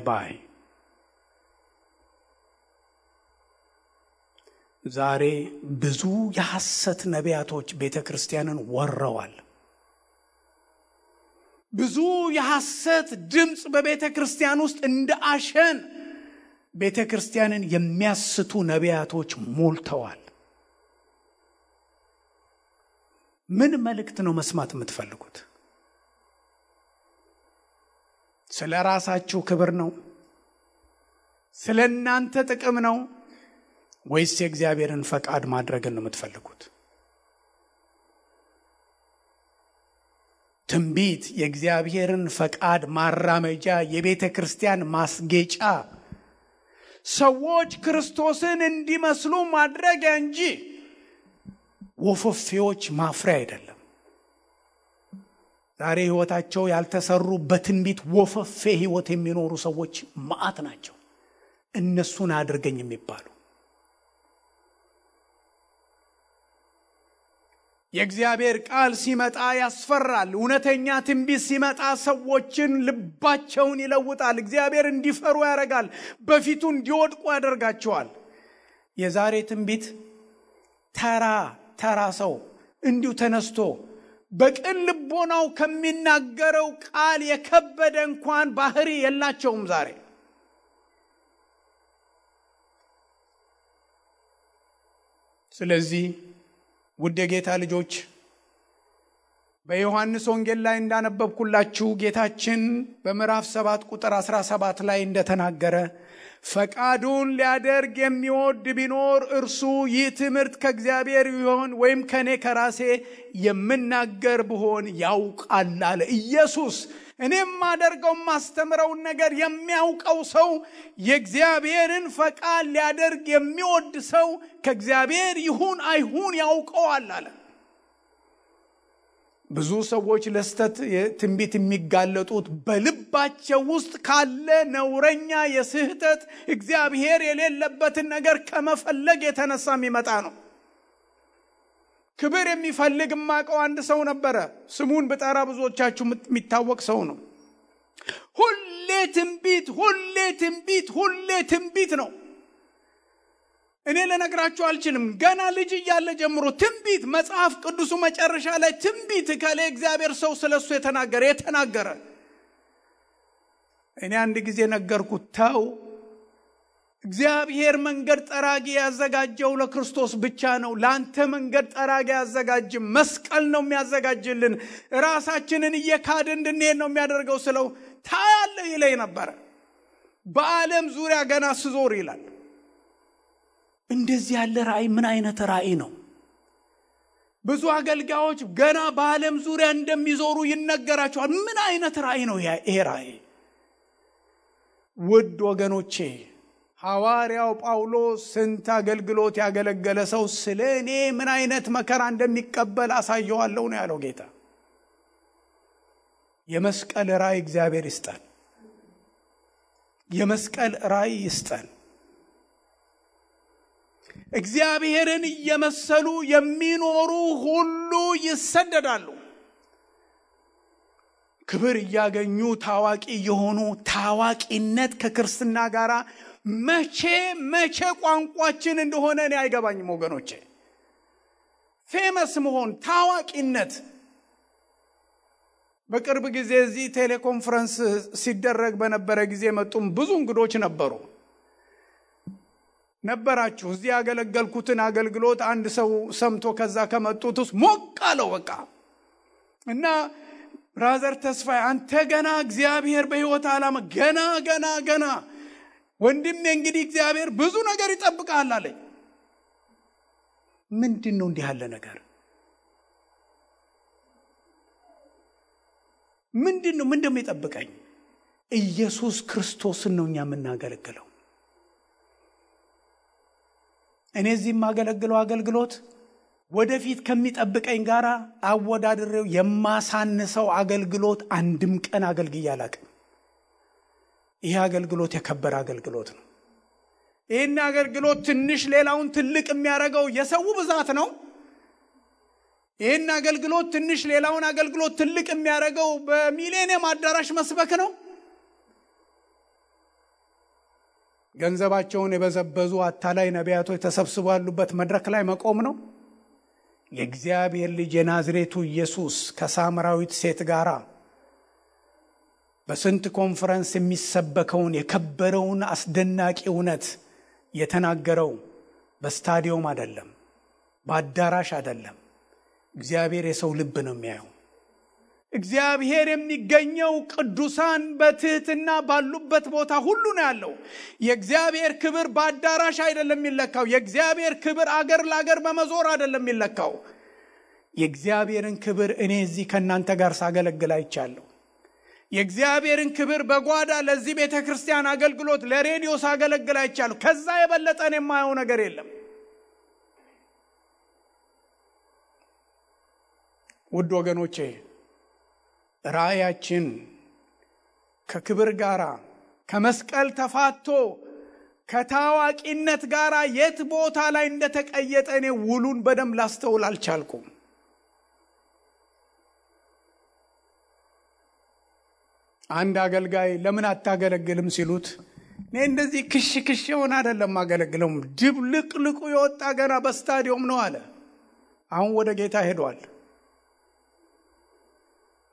ዛሬ ብዙ የሐሰት ነቢያቶች ቤተክርስቲያንን ወረዋል። ብዙ የሐሰት ድምጽ በቤተክርስቲያን ውስጥ እንደ አሸን ቤተክርስቲያንን የሚያስቱ ነቢያቶች ሞልተዋል። ምን መልእክት ነው መስማት የምትፈልጉት? ስለ ራሳችሁ ክብር ነው? ስለ እናንተ ጥቅም ነው? ወይስ የእግዚአብሔርን ፈቃድ ማድረግን ነው የምትፈልጉት? ትንቢት የእግዚአብሔርን ፈቃድ ማራመጃ፣ የቤተ ክርስቲያን ማስጌጫ፣ ሰዎች ክርስቶስን እንዲመስሉ ማድረጊያ እንጂ ወፈፌዎች ማፍሪያ አይደለም። ዛሬ ህይወታቸው ያልተሰሩ በትንቢት ወፈፌ ህይወት የሚኖሩ ሰዎች ማአት ናቸው። እነሱን አድርገኝ የሚባሉ የእግዚአብሔር ቃል ሲመጣ ያስፈራል። እውነተኛ ትንቢት ሲመጣ ሰዎችን ልባቸውን ይለውጣል። እግዚአብሔር እንዲፈሩ ያደርጋል። በፊቱ እንዲወድቁ ያደርጋቸዋል። የዛሬ ትንቢት ተራ ሰው እንዲሁ ተነስቶ በቅን ልቦናው ከሚናገረው ቃል የከበደ እንኳን ባህሪ የላቸውም ዛሬ። ስለዚህ ውድ የጌታ ልጆች በዮሐንስ ወንጌል ላይ እንዳነበብኩላችሁ ጌታችን በምዕራፍ 7 ቁጥር 17 ላይ እንደተናገረ ፈቃዱን ሊያደርግ የሚወድ ቢኖር እርሱ ይህ ትምህርት ከእግዚአብሔር ይሆን ወይም ከኔ ከራሴ የምናገር ብሆን ያውቃል አለ ኢየሱስ። እኔም ማደርገው ማስተምረውን ነገር የሚያውቀው ሰው የእግዚአብሔርን ፈቃድ ሊያደርግ የሚወድ ሰው ከእግዚአብሔር ይሁን አይሁን ያውቀዋል አለ። ብዙ ሰዎች ለስተት ትንቢት የሚጋለጡት በልባቸው ውስጥ ካለ ነውረኛ የስህተት እግዚአብሔር የሌለበትን ነገር ከመፈለግ የተነሳ የሚመጣ ነው። ክብር የሚፈልግ ማቀው አንድ ሰው ነበረ። ስሙን በጠራ ብዙዎቻችሁ የሚታወቅ ሰው ነው። ሁሌ ትንቢት ነው። እኔ ለነግራችሁ አልችልም። ገና ልጅ እያለ ጀምሮ ትንቢት፣ መጽሐፍ ቅዱሱ መጨረሻ ላይ ትንቢት ከለ እግዚአብሔር ሰው ስለሱ የተናገረ። እኔ አንድ ጊዜ ነገርኩት፣ ተው እግዚአብሔር መንገድ ጠራጊ ያዘጋጀው ለክርስቶስ ብቻ ነው። ላንተ መንገድ ጠራጊ ያዘጋጅም፣ መስቀል ነው የሚያዘጋጅልን። ራሳችንን እየካድን እንድንሄድ ነው የሚያደርገው ስለው ታያለ ይለኝ ነበር። በዓለም ዙሪያ ገና ስዞር ይላል። እንደዚህ ያለ ራእይ ምን አይነት ራእይ ነው? ብዙ አገልጋዮች ገና በዓለም ዙሪያ እንደሚዞሩ ይነገራቸዋል። ምን አይነት ራእይ ነው ይሄ ራእይ? ውድ ወገኖቼ ሐዋርያው ጳውሎስ ስንት አገልግሎት ያገለገለ ሰው ስለኔ ምን አይነት መከራ እንደሚቀበል አሳየዋለሁ ነው ያለው ጌታ። የመስቀል ራእይ እግዚአብሔር ይስጠን። የመስቀል ራእይ ይስጠን። እግዚአብሔርን እየመሰሉ የሚኖሩ ሁሉ ይሰደዳሉ። ክብር እያገኙ ታዋቂ የሆኑ ታዋቂነት ከክርስትና ጋር መቼ ቋንቋችን እንደሆነ እኔ አይገባኝም ወገኖቼ። ፌመስ መሆን ታዋቂነት። በቅርብ ጊዜ እዚህ ቴሌኮንፈረንስ ሲደረግ በነበረ ጊዜ መጡም ብዙ እንግዶች ነበራችሁ። እዚህ ያገለገልኩትን አገልግሎት አንድ ሰው ሰምቶ ከዛ ከመጡት ውስጥ ሞቅ አለው በቃ። እና ብራዘር ተስፋዬ አንተ ገና እግዚአብሔር በሕይወት ዓላማ ገና ወንድሜ እንግዲህ እግዚአብሔር ብዙ ነገር ይጠብቃል አለኝ። ምንድነው እንዲህ ያለ ነገር? ምንድነው የሚጠብቀኝ? ኢየሱስ ክርስቶስን ነው እኛ የምናገለግለው። እኔ እዚህ የማገለግለው አገልግሎት ወደፊት ከሚጠብቀኝ ጋር አወዳድሬው የማሳንሰው አገልግሎት አንድም ቀን አገልግዬ አላውቅም። ይሄ አገልግሎት የከበረ አገልግሎት ነው። ይሄን አገልግሎት ትንሽ ሌላውን ትልቅ የሚያደርገው የሰው ብዛት ነው። ይሄን አገልግሎት ትንሽ ሌላውን አገልግሎት ትልቅ የሚያደርገው በሚሊኒየም አዳራሽ መስበክ ነው። ገንዘባቸውን የበዘበዙ አታላይ ነቢያቶች ተሰብስበው ያሉበት መድረክ ላይ መቆም ነው። የእግዚአብሔር ልጅ የናዝሬቱ ኢየሱስ ከሳምራዊት ሴት ጋራ በስንት ኮንፈረንስ የሚሰበከውን የከበረውን አስደናቂ እውነት የተናገረው በስታዲየም አይደለም፣ በአዳራሽ አይደለም። እግዚአብሔር የሰው ልብ ነው የሚያየው። እግዚአብሔር የሚገኘው ቅዱሳን በትህትና ባሉበት ቦታ ሁሉ ነው ያለው። የእግዚአብሔር ክብር በአዳራሽ አይደለም የሚለካው። የእግዚአብሔር ክብር አገር ለአገር በመዞር አይደለም የሚለካው። የእግዚአብሔርን ክብር እኔ እዚህ ከእናንተ ጋር ሳገለግል አይቻለሁ። የእግዚአብሔርን ክብር በጓዳ ለዚህ ቤተክርስቲያን አገልግሎት ለሬዲዮ ሳገለግል አይቻለሁ። ከዛ የበለጠ እኔ የማየው ነገር የለም። ውድ ወገኖቼ ራእያችን ከክብር ጋራ ከመስቀል ተፋቶ ከታዋቂነት ጋራ የት ቦታ ላይ እንደተቀየጠ እኔ ውሉን በደንብ ላስተውል አልቻልኩም። አንድ አገልጋይ ለምን አታገለግልም ሲሉት እኔ እንደዚህ ክሽ ሆነ አይደለም አገለግለው ድብልቅልቁ የወጣ ገና በስታዲየም ነው አለ። አሁን ወደ ጌታ ሄዷል።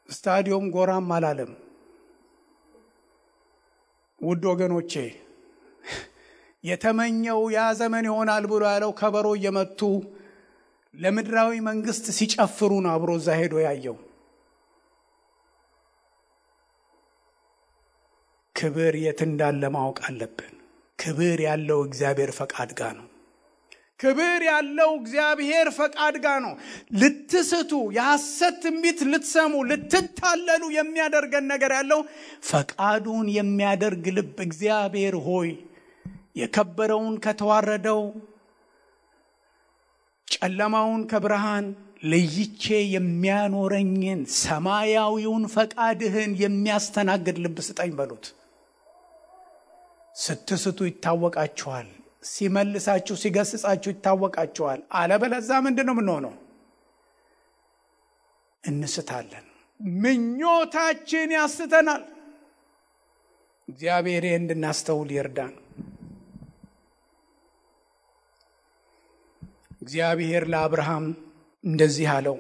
ስታዲየም ጎራም አላለም። ውድ ወገኖቼ የተመኘው ያ ዘመን ይሆናል ብሎ ያለው ከበሮ እየመቱ ለምድራዊ መንግስት ሲጨፍሩ ነው አብሮ እዛ ሄዶ ያየው። ክብር የት እንዳለ ማወቅ አለብን። ክብር ያለው እግዚአብሔር ፈቃድ ጋር ነው። ክብር ያለው እግዚአብሔር ፈቃድ ጋር ነው። ልትስቱ የሐሰት ትንቢት ልትሰሙ ልትታለሉ የሚያደርገን ነገር ያለው ፈቃዱን የሚያደርግ ልብ እግዚአብሔር ሆይ የከበረውን ከተዋረደው ጨለማውን ከብርሃን ለይቼ የሚያኖረኝን ሰማያዊውን ፈቃድህን የሚያስተናግድ ልብ ስጠኝ በሉት። ስትስቱ ይታወቃችኋል። ሲመልሳችሁ ሲገስጻችሁ ይታወቃችኋል። አለበለዚያ ምንድነው የምንሆነው? እንስታለን። ምኞታችን ያስተናል። እግዚአብሔር እንድናስተውል ይርዳን። እግዚአብሔር ለአብርሃም እንደዚህ አለው።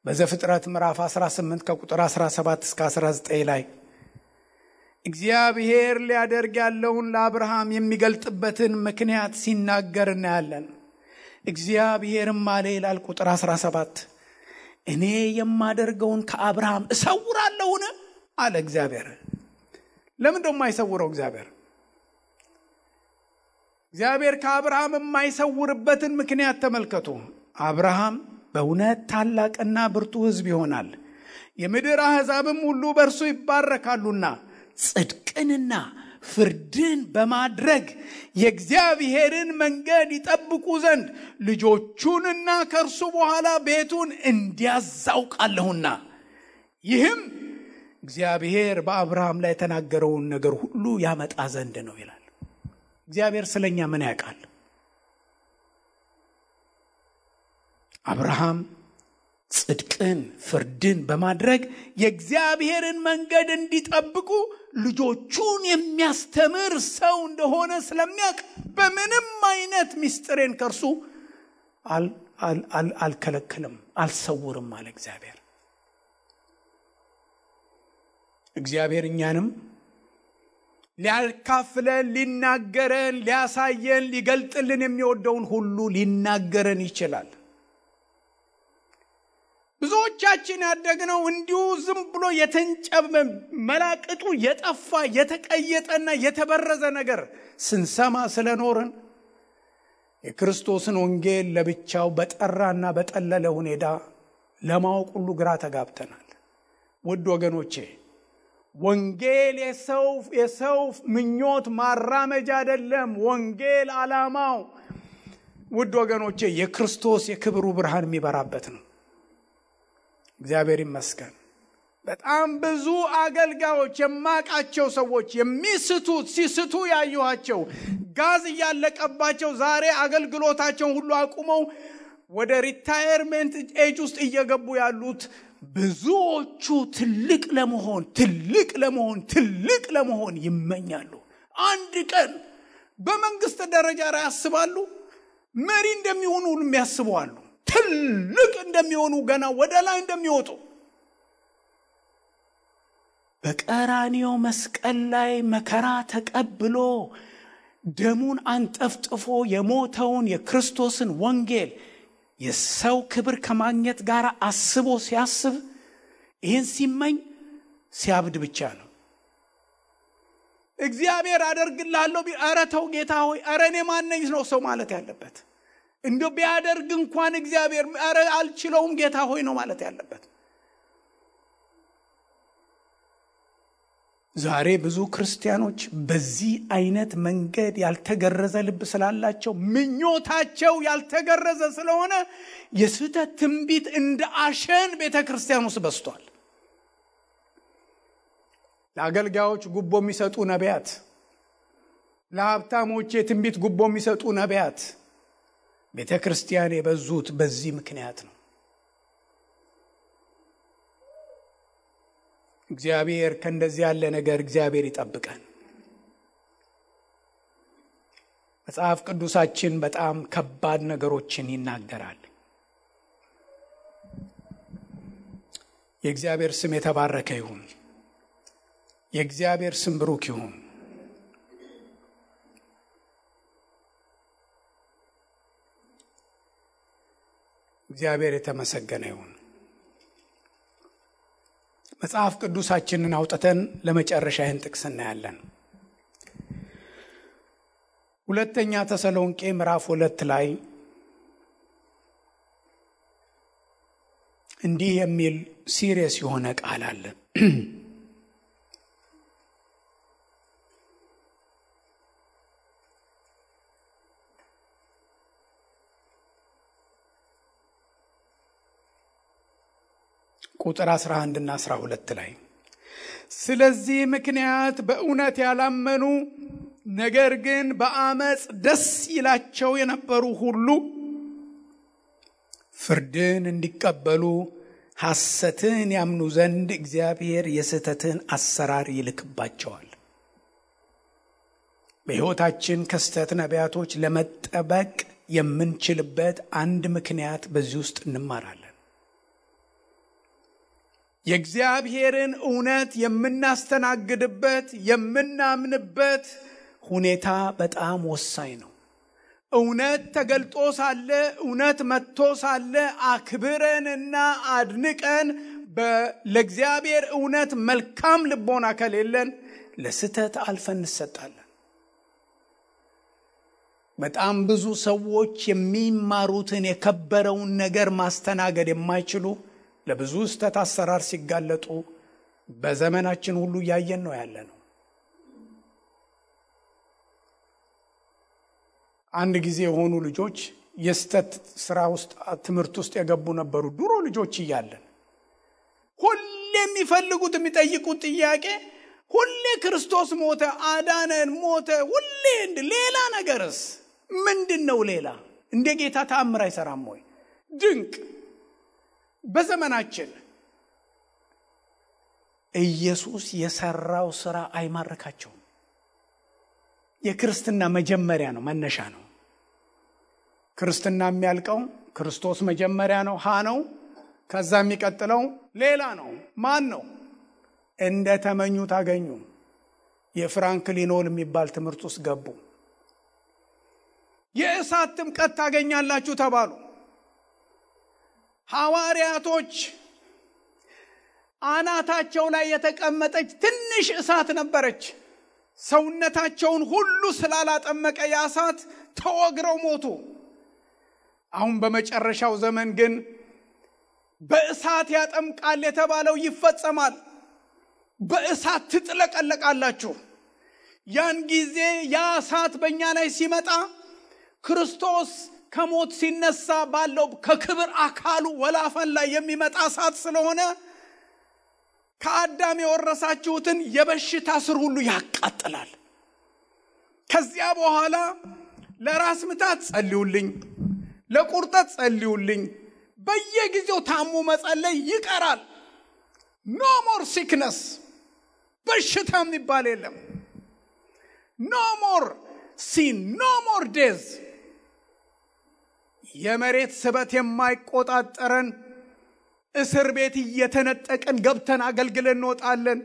በዘፍጥረት ምዕራፍ 18 ከቁጥር 17 እስከ 19 ላይ እግዚአብሔር ሊያደርግ ያለውን ለአብርሃም የሚገልጥበትን ምክንያት ሲናገር እናያለን። እግዚአብሔርም አለ ይላል ቁጥር 17 እኔ የማደርገውን ከአብርሃም እሰውራለሁን አለ እግዚአብሔር። ለምን ደሞ አይሰውረው እግዚአብሔር? እግዚአብሔር ከአብርሃም የማይሰውርበትን ምክንያት ተመልከቱ። አብርሃም በእውነት ታላቅና ብርቱ ሕዝብ ይሆናል፣ የምድር አሕዛብም ሁሉ በእርሱ ይባረካሉና ጽድቅንና ፍርድን በማድረግ የእግዚአብሔርን መንገድ ይጠብቁ ዘንድ ልጆቹንና ከእርሱ በኋላ ቤቱን እንዲያዛውቃለሁና ይህም እግዚአብሔር በአብርሃም ላይ የተናገረውን ነገር ሁሉ ያመጣ ዘንድ ነው ይላል። እግዚአብሔር ስለኛ ምን ያውቃል? አብርሃም ጽድቅን ፍርድን በማድረግ የእግዚአብሔርን መንገድ እንዲጠብቁ ልጆቹን የሚያስተምር ሰው እንደሆነ ስለሚያውቅ በምንም አይነት ምስጢሬን ከርሱ አልከለክልም አልሰውርም አለ እግዚአብሔር። እግዚአብሔር እኛንም ሊያካፍለን ሊናገረን ሊያሳየን ሊገልጥልን የሚወደውን ሁሉ ሊናገረን ይችላል። ብዙዎቻችን ያደግነው እንዲሁ ዝም ብሎ የተንጨበ መላቅጡ የጠፋ የተቀየጠና የተበረዘ ነገር ስንሰማ ስለኖርን የክርስቶስን ወንጌል ለብቻው በጠራና በጠለለ ሁኔታ ለማወቅ ሁሉ ግራ ተጋብተናል። ውድ ወገኖቼ ወንጌል የሰው ምኞት ማራመጃ አይደለም። ወንጌል ዓላማው ውድ ወገኖቼ የክርስቶስ የክብሩ ብርሃን የሚበራበት ነው። እግዚአብሔር ይመስገን። በጣም ብዙ አገልጋዮች የማቃቸው ሰዎች ሲስቱ ያዩዋቸው ጋዝ ያለቀባቸው ዛሬ አገልግሎታቸውን ሁሉ አቁመው ወደ ሪታየርመንት ኤጅ ውስጥ እየገቡ ያሉት ብዙዎቹ ትልቅ ለመሆን ይመኛሉ። አንድ ቀን በመንግስት ደረጃ ላይ ያስባሉ። መሪ እንደሚሆኑ ሁሉ ያስባሉ። ትልቅ እንደሚሆኑ ገና ወደ ላይ እንደሚወጡ። በቀራንዮ መስቀል ላይ መከራ ተቀብሎ ደሙን አንጠፍጥፎ የሞተውን የክርስቶስን ወንጌል የሰው ክብር ከማግኘት ጋር አስቦ ሲያስብ ይህን ሲመኝ ሲያብድ ብቻ ነው። እግዚአብሔር አደርግልሃለሁ ኧረ ተው ጌታ ሆይ ኧረ እኔ ማነኝ ነው ሰው ማለት ያለበት። እንደው ቢያደርግ እንኳን እግዚአብሔር ኧረ አልችለውም ጌታ ሆይ ነው ማለት ያለበት። ዛሬ ብዙ ክርስቲያኖች በዚህ አይነት መንገድ ያልተገረዘ ልብ ስላላቸው ምኞታቸው ያልተገረዘ ስለሆነ የስህተት ትንቢት እንደ አሸን ቤተክርስቲያን ውስጥ በስቷል። ለአገልጋዮች ጉቦ የሚሰጡ ነቢያት፣ ለሀብታሞች የትንቢት ጉቦ የሚሰጡ ነቢያት ቤተክርስቲያን የበዙት በዚህ ምክንያት ነው። እግዚአብሔር ከእንደዚህ ያለ ነገር እግዚአብሔር ይጠብቀን። መጽሐፍ ቅዱሳችን በጣም ከባድ ነገሮችን ይናገራል። የእግዚአብሔር ስም የተባረከ ይሁን። የእግዚአብሔር ስም ብሩክ ይሁን። እግዚአብሔር የተመሰገነ ይሁን። መጽሐፍ ቅዱሳችንን አውጥተን ለመጨረሻ ይህን ጥቅስ እናያለን። ሁለተኛ ተሰሎንቄ ምዕራፍ 2 ላይ እንዲህ የሚል ሲሪየስ የሆነ ቃል አለ። ቁጥር 11 እና 12 ላይ ስለዚህ ምክንያት በእውነት ያላመኑ ነገር ግን በአመጽ ደስ ይላቸው የነበሩ ሁሉ ፍርድን እንዲቀበሉ ሐሰትን ያምኑ ዘንድ እግዚአብሔር የስህተትን አሰራር ይልክባቸዋል። በሕይወታችን ከስህተት ነቢያቶች ለመጠበቅ የምንችልበት አንድ ምክንያት በዚህ ውስጥ እንማራለን። የእግዚአብሔርን እውነት የምናስተናግድበት የምናምንበት ሁኔታ በጣም ወሳኝ ነው። እውነት ተገልጦ ሳለ እውነት መጥቶ ሳለ አክብረንና አድንቀን ለእግዚአብሔር እውነት መልካም ልቦና ከሌለን ለስህተት አልፈን እንሰጣለን። በጣም ብዙ ሰዎች የሚማሩትን የከበረውን ነገር ማስተናገድ የማይችሉ ለብዙ ስህተት አሰራር ሲጋለጡ በዘመናችን ሁሉ ያየን ነው ያለነው። አንድ ጊዜ የሆኑ ልጆች የስተት ስራ ውስጥ ትምህርት ውስጥ የገቡ ነበሩ። ድሮ ልጆች እያለን ሁሌ የሚፈልጉት የሚጠይቁት ጥያቄ ሁሌ ክርስቶስ ሞተ፣ አዳነን፣ ሞተ፣ ሁሌ ሌላ ነገርስ ምንድነው? ሌላ እንደ ጌታ ተአምር አይሰራም ወይ? ድንቅ በዘመናችን ኢየሱስ የሰራው ስራ አይማርካቸውም። የክርስትና መጀመሪያ ነው፣ መነሻ ነው። ክርስትና የሚያልቀው ክርስቶስ መጀመሪያ ነው፣ ሀ ነው። ከዛ የሚቀጥለው ሌላ ነው። ማን ነው? እንደ ተመኙት አገኙ። የፍራንክሊን የሚባል ትምህርት ውስጥ ገቡ። የእሳት ጥምቀት ታገኛላችሁ ተባሉ። ሐዋርያቶች አናታቸው ላይ የተቀመጠች ትንሽ እሳት ነበረች። ሰውነታቸውን ሁሉ ስላላጠመቀ ያሳት ተወግረው ሞቱ። አሁን በመጨረሻው ዘመን ግን በእሳት ያጠምቃል የተባለው ይፈጸማል። በእሳት ትጥለቀለቃላችሁ። ያን ጊዜ ያ እሳት በእኛ ላይ ሲመጣ ክርስቶስ ከሞት ሲነሳ ባለው ከክብር አካሉ ወላፈን ላይ የሚመጣ እሳት ስለሆነ ከአዳም የወረሳችሁትን የበሽታ ስር ሁሉ ያቃጥላል። ከዚያ በኋላ ለራስ ምታት ጸልዩልኝ፣ ለቁርጠት ጸልዩልኝ፣ በየጊዜው ታሙ መጸለይ ይቀራል። ኖ ሞር ሲክነስ፣ በሽታ የሚባል የለም። ኖ ሞር ሲን፣ ኖ ሞር ዴዝ። የመሬት ስበት የማይቆጣጠረን እስር ቤት እየተነጠቀን ገብተን አገልግለን እንወጣለን።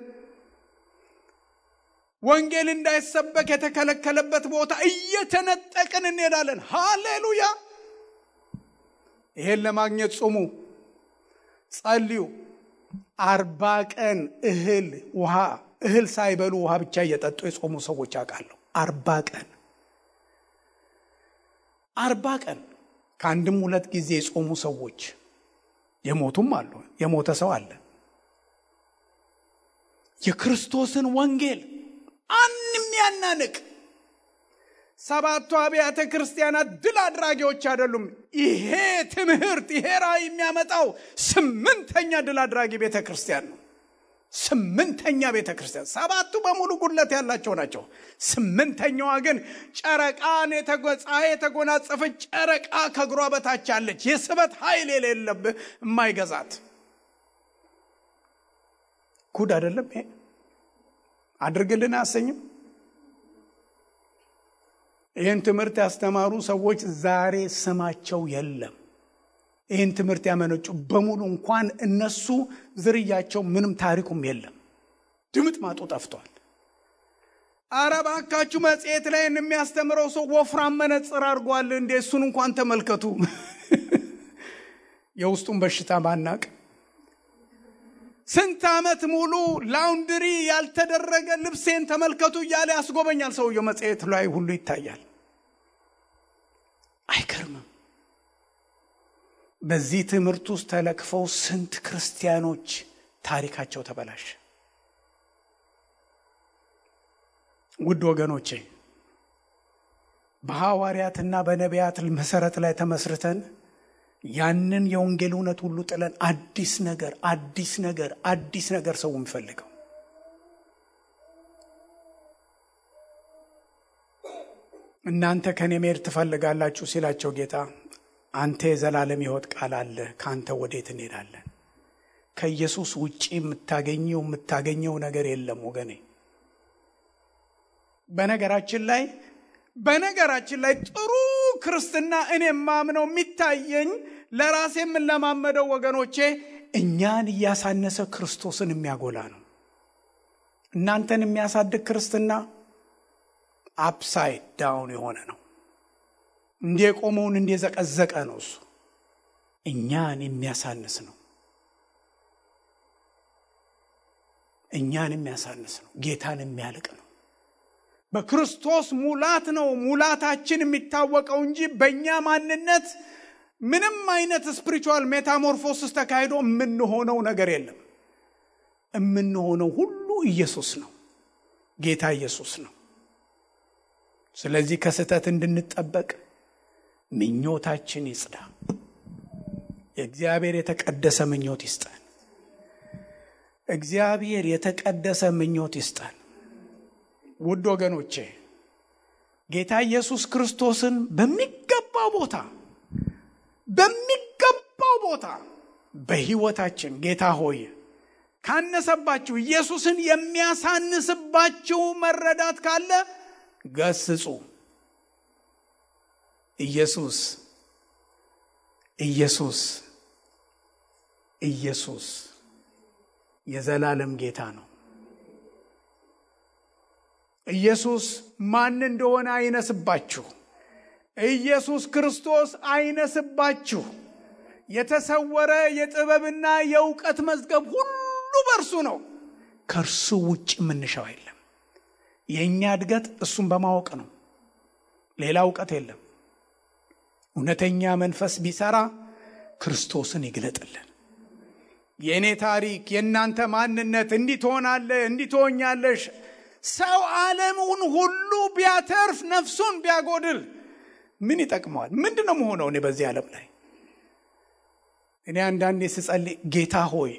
ወንጌል እንዳይሰበክ የተከለከለበት ቦታ እየተነጠቅን እንሄዳለን። ሃሌሉያ! ይሄን ለማግኘት ጾሙ፣ ጸልዩ። 40 ቀን እህል ሳይበሉ ውሃ ብቻ እየጠጡ የጾሙ ሰዎች አውቃለሁ። 40 ቀን ከአንድም 2 ጊዜ የጾሙ ሰዎች የሞቱም አሉ። የሞተ ሰው አለ። የክርስቶስን ወንጌል አንንም ያናንቅ። 7 አብያተ ክርስቲያናት ድል አድራጊዎች አይደሉም። ይሄ ትምህርት ይሄ ራእይ የሚያመጣው 8ኛ ድል አድራጊ ቤተክርስቲያን ነው። 8ኛ ቤተክርስቲያን። 7ቱ በሙሉ ጉድለት ያላቸው ናቸው። 8ኛዋ ግን ጨረቃን የተጎናጸፈች ጨረቃ ከእግሯ በታች አለች። የስበት ኃይል የሌለበት የማይገዛት ጉድ አይደለም ይሄ? አድርግልን አሰኝም። ይህን ትምህርት ያስተማሩ ሰዎች ዛሬ ስማቸው የለም። ይህን ትምህርት ያመነጩ በሙሉ እንኳን እነሱ ዝርያቸው ምንም ታሪኩም የለም። ድምጥ ማጡ ጠፍቷል። አረባካችሁ መጽሔት ላይ የሚያስተምረው ሰው ወፍራም መነጽር አድርጓል እንዴ? እሱን እንኳን ተመልከቱ። የውስጡን በሽታ ማናቅ። ስንት ዓመት ሙሉ ላውንድሪ ያልተደረገ ልብሴን ተመልከቱ እያለ ያስጎበኛል ሰውየው። መጽሔት ላይ ሁሉ ይታያል። አይከርምም? በዚህ ትምህርት ውስጥ ተለክፈው ስንት ክርስቲያኖች ታሪካቸው ተበላሸ። ውድ ወገኖቼ በሐዋርያትና በነቢያት መሰረት ላይ ተመስርተን ያንን የወንጌል እውነት ሁሉ ጥለን አዲስ ነገር ሰው የሚፈልገው እናንተ ከኔ መሄድ ትፈልጋላችሁ ሲላቸው ጌታ አንተ የዘላለም ሕይወት ቃል አለ፣ ካንተ ወዴት እንሄዳለን? ከኢየሱስ ውጪ የምታገኘው ነገር የለም ወገኔ። በነገራችን ላይ ጥሩ ክርስትና እኔ ማምነው የሚታየኝ ለራሴ የምንለማመደው ወገኖቼ እኛን እያሳነሰ ክርስቶስን የሚያጎላ ነው። እናንተን የሚያሳድግ ክርስትና አፕሳይድ ዳውን የሆነ ነው። እንደቆመውን እንደዘቀዘቀ ነው። እሱ እኛን የሚያሳንስ ነው። ጌታን የሚያልቅ ነው። በክርስቶስ ሙላት ነው ሙላታችን የሚታወቀው እንጂ በእኛ ማንነት ምንም አይነት ስፒሪቹዋል ሜታሞርፎሲስ ተካሂዶ የምንሆነው ነገር የለም። የምንሆነው ሁሉ ኢየሱስ ነው፣ ጌታ ኢየሱስ ነው። ስለዚህ ከስህተት እንድንጠበቅ ምኞታችን ይጽዳ። የእግዚአብሔር የተቀደሰ ምኞት ይስጠን። ውድ ወገኖቼ ጌታ ኢየሱስ ክርስቶስን በሚገባው ቦታ በሕይወታችን ጌታ ሆይ ካነሰባችሁ ኢየሱስን የሚያሳንስባችሁ መረዳት ካለ ገስጹ። ኢየሱስ የዘላለም ጌታ ነው። ኢየሱስ ማን እንደሆነ አይነስባችሁ። ኢየሱስ ክርስቶስ አይነስባችሁ። የተሰወረ የጥበብና የእውቀት መዝገብ ሁሉ በእርሱ ነው። ከእርሱ ውጭ ምንሻው የለም። የእኛ እድገት እሱን በማወቅ ነው። ሌላ እውቀት የለም። እውነተኛ መንፈስ ቢሰራ ክርስቶስን ይግለጥልን። የእኔ ታሪክ፣ የእናንተ ማንነት እንዲህ ትሆናለህ፣ እንዲህ ትሆኛለሽ። ሰው ዓለሙን ሁሉ ቢያተርፍ ነፍሱን ቢያጎድል ምን ይጠቅመዋል? ምንድነው መሆነው? እኔ በዚህ ዓለም ላይ እኔ አንዳንዴ ስጸልይ ጌታ ሆይ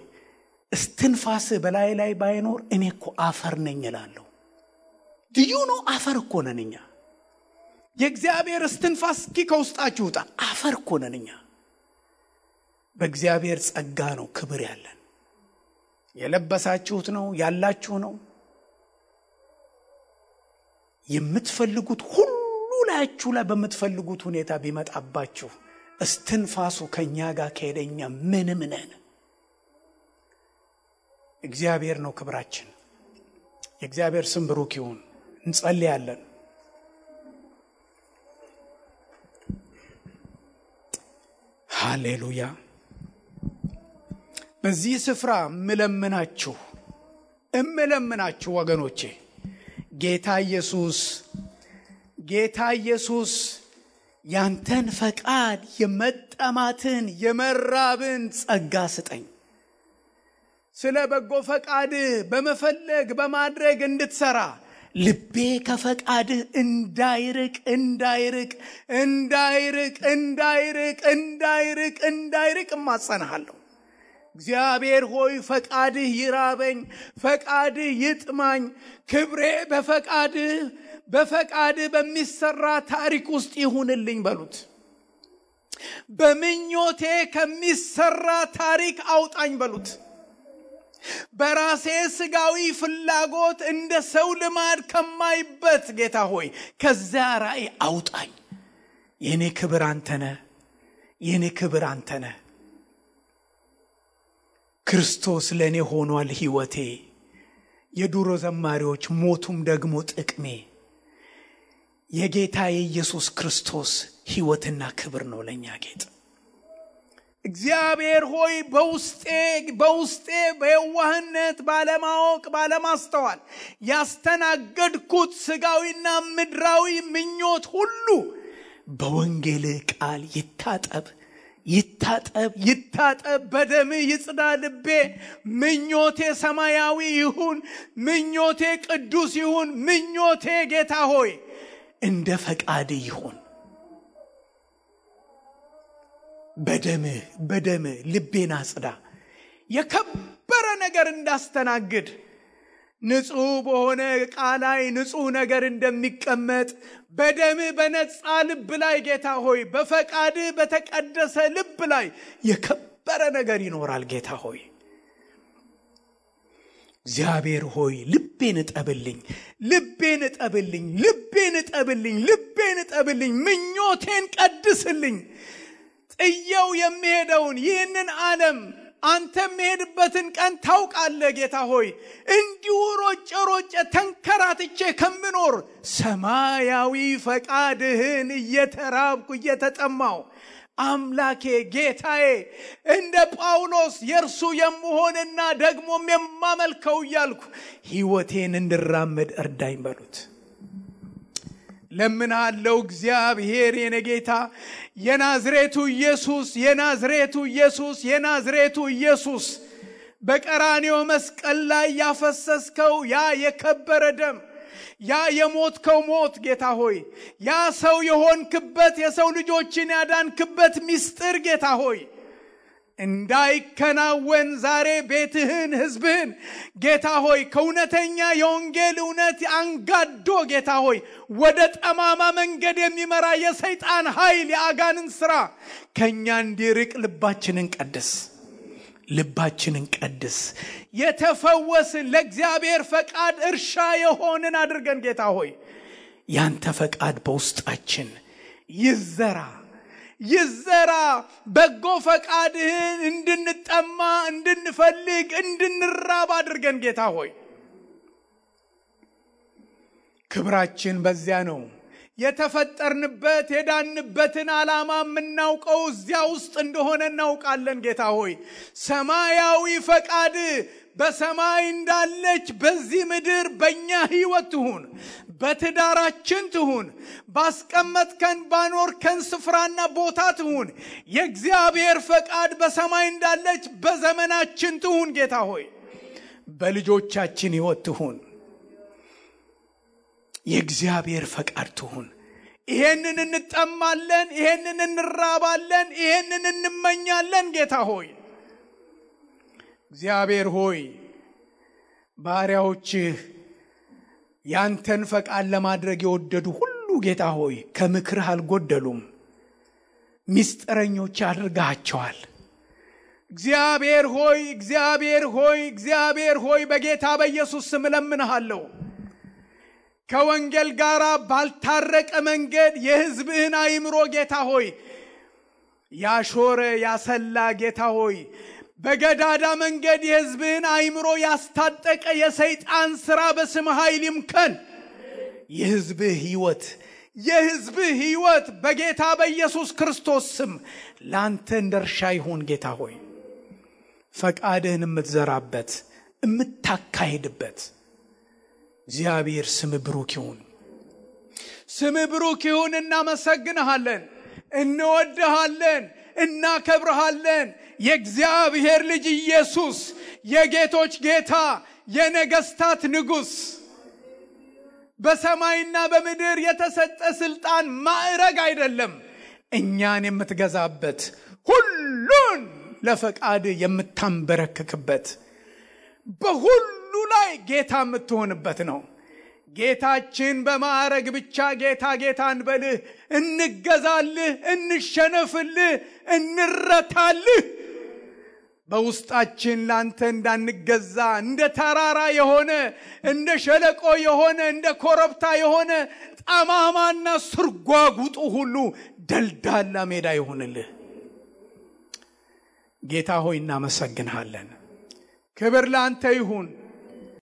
እስትንፋስ በላይ ላይ ባይኖር እኔ እኮ አፈር ነኝ እላለሁ። ድዩ ነው አፈር እኮ ነን እኛ። የእግዚአብሔር እስትንፋስ እስኪ ከውስጣችሁ ውጣ። አፈር እኮ ነን እኛ። በእግዚአብሔር ጸጋ ነው ክብር ያለን። የለበሳችሁት ነው ያላችሁ ነው። የምትፈልጉት ሁሉ ላያችሁ ላይ በምትፈልጉት ሁኔታ ቢመጣባችሁ እስትንፋሱ ከኛ ጋር ከሄደኛ ምንም ነን። እግዚአብሔር ነው ክብራችን። የእግዚአብሔር ስም ብሩክ ይሁን። እንጸልያለን። ሃሌሉያ። በዚህ ስፍራ እምለምናችሁ ወገኖቼ ጌታ ኢየሱስ ያንተን ፈቃድ የመጠማትን የመራብን ጸጋ ስጠኝ። ስለ በጎ ፈቃድ በመፈለግ በማድረግ እንድትሰራ ልቤ ከፈቃድህ እንዳይርቅ እማጸናሃለሁ። እግዚአብሔር ሆይ ፈቃድህ ይራበኝ፣ ፈቃድህ ይጥማኝ። ክብሬ በፈቃድህ በሚሰራ ታሪክ ውስጥ ይሁንልኝ በሉት። በምኞቴ ከሚሰራ ታሪክ አውጣኝ በሉት። በራሴ ስጋዊ ፍላጎት እንደ ሰው ልማድ ከማይበት ጌታ ሆይ ከዛ ራእይ አውጣኝ። የኔ ክብር አንተ ነህ፣ የኔ ክብር አንተ ነህ። ክርስቶስ ለኔ ሆኗል ሕይወቴ፣ የዱሮ ዘማሪዎች ሞቱም ደግሞ ጥቅሜ። የጌታ የኢየሱስ ክርስቶስ ሕይወትና ክብር ነው ለኛ ጌጥ። እግዚአብሔር ሆይ በውስጤ በየዋህነት ባለማወቅ ባለማስተዋል ያስተናገድኩት ስጋዊና ምድራዊ ምኞት ሁሉ በወንጌል ቃል ይታጠብ በደም ይጽዳ ልቤ። ምኞቴ ሰማያዊ ይሁን፣ ምኞቴ ቅዱስ ይሁን፣ ምኞቴ ጌታ ሆይ እንደ ፈቃድ ይሁን። በደም ልቤን አጽዳ። የከበረ ነገር እንዳስተናግድ ንጹህ በሆነ ቃል ላይ ንጹህ ነገር እንደሚቀመጥ በደም በነጻ ልብ ላይ ጌታ ሆይ በፈቃድ በተቀደሰ ልብ ላይ የከበረ ነገር ይኖራል። ጌታ ሆይ እግዚአብሔር ሆይ ልቤን እጠብልኝ፣ ምኞቴን ቀድስልኝ። ጥየው የሚሄደውን ይህንን ዓለም አንተ የሚሄድበትን ቀን ታውቃለህ ጌታ ሆይ። እንዲሁ ሮጬ ተንከራትቼ ከምኖር ሰማያዊ ፈቃድህን እየተራብኩ እየተጠማው አምላኬ ጌታዬ እንደ ጳውሎስ የእርሱ የምሆንና ደግሞም የማመልከው እያልኩ ሕይወቴን እንድራመድ እርዳኝ በሉት። ለምናለው እግዚአብሔር የኔ ጌታ የናዝሬቱ ኢየሱስ በቀራንዮ መስቀል ላይ ያፈሰስከው ያ የከበረ ደም፣ ያ የሞትከው ሞት ጌታ ሆይ ያ ሰው የሆንክበት የሰው ልጆችን ያዳንክበት ምስጢር ጌታ ሆይ እንዳይከናወን ዛሬ ቤትህን ሕዝብህን ጌታ ሆይ ከእውነተኛ የወንጌል እውነት አንጋዶ ጌታ ሆይ ወደ ጠማማ መንገድ የሚመራ የሰይጣን ኃይል የአጋንንት ሥራ ከኛ እንዲርቅ ልባችንን ቀድስ። የተፈወስን ለእግዚአብሔር ፈቃድ እርሻ የሆንን አድርገን ጌታ ሆይ ያንተ ፈቃድ በውስጣችን ይዘራ። በጎ ፈቃድህን እንድንጠማ እንድንፈልግ እንድንራብ አድርገን ጌታ ሆይ ክብራችን በዚያ ነው። የተፈጠርንበት የዳንበትን ዓላማ የምናውቀው እዚያ ውስጥ እንደሆነ እናውቃለን ጌታ ሆይ። ሰማያዊ ፈቃድ በሰማይ እንዳለች በዚህ ምድር በእኛ ሕይወት ትሁን፣ በትዳራችን ትሁን፣ ባስቀመጥከን ባኖርከን ስፍራና ቦታ ትሁን። የእግዚአብሔር ፈቃድ በሰማይ እንዳለች በዘመናችን ትሁን ጌታ ሆይ። በልጆቻችን ሕይወት ትሁን፣ የእግዚአብሔር ፈቃድ ትሁን። ይሄንን እንጠማለን፣ ይሄንን እንራባለን፣ ይሄንን እንመኛለን ጌታ ሆይ። እግዚአብሔር ሆይ ባሪያዎችህ ያንተን ፈቃድ ለማድረግ የወደዱ ሁሉ ጌታ ሆይ ከምክርህ አልጎደሉም፣ ምስጢረኞች አድርጋቸዋል። እግዚአብሔር ሆይ በጌታ በኢየሱስ ስም እለምንሃለሁ ከወንጌል ጋር ባልታረቀ መንገድ የሕዝብህን አእምሮ ጌታ ሆይ ያሾረ ያሰላ ጌታ ሆይ በገዳዳ መንገድ የሕዝብህን አእምሮ ያስታጠቀ የሰይጣን ሥራ በስም ኃይል ይምከን። የሕዝብህ ሕይወት በጌታ በኢየሱስ ክርስቶስ ስም ላንተ እንደርሻ ይሁን ጌታ ሆይ። ፈቃድህን የምትዘራበት የምታካሄድበት እግዚአብሔር ስም ብሩክ ይሁን። እናመሰግንሃለን፣ እንወድሃለን፣ እናከብርሃለን። የእግዚአብሔር ልጅ ኢየሱስ የጌቶች ጌታ የነገስታት ንጉሥ በሰማይና በምድር የተሰጠ ስልጣን ማዕረግ አይደለም፣ እኛን የምትገዛበት ሁሉን ለፈቃድ የምታንበረክክበት በሁሉ ላይ ጌታ የምትሆንበት ነው። ጌታችን በማዕረግ ብቻ ጌታ እንበልህ፣ እንገዛልህ፣ እንሸነፍልህ፣ እንረታልህ። በውስጣችን ላንተ እንዳንገዛ እንደ ተራራ የሆነ እንደ ሸለቆ የሆነ እንደ ኮረብታ የሆነ ጠማማና ስርጓጉጡ ሁሉ ደልዳላ ሜዳ ይሁንልህ። ጌታ ሆይ እናመሰግንሃለን። ክብር ላንተ ይሁን።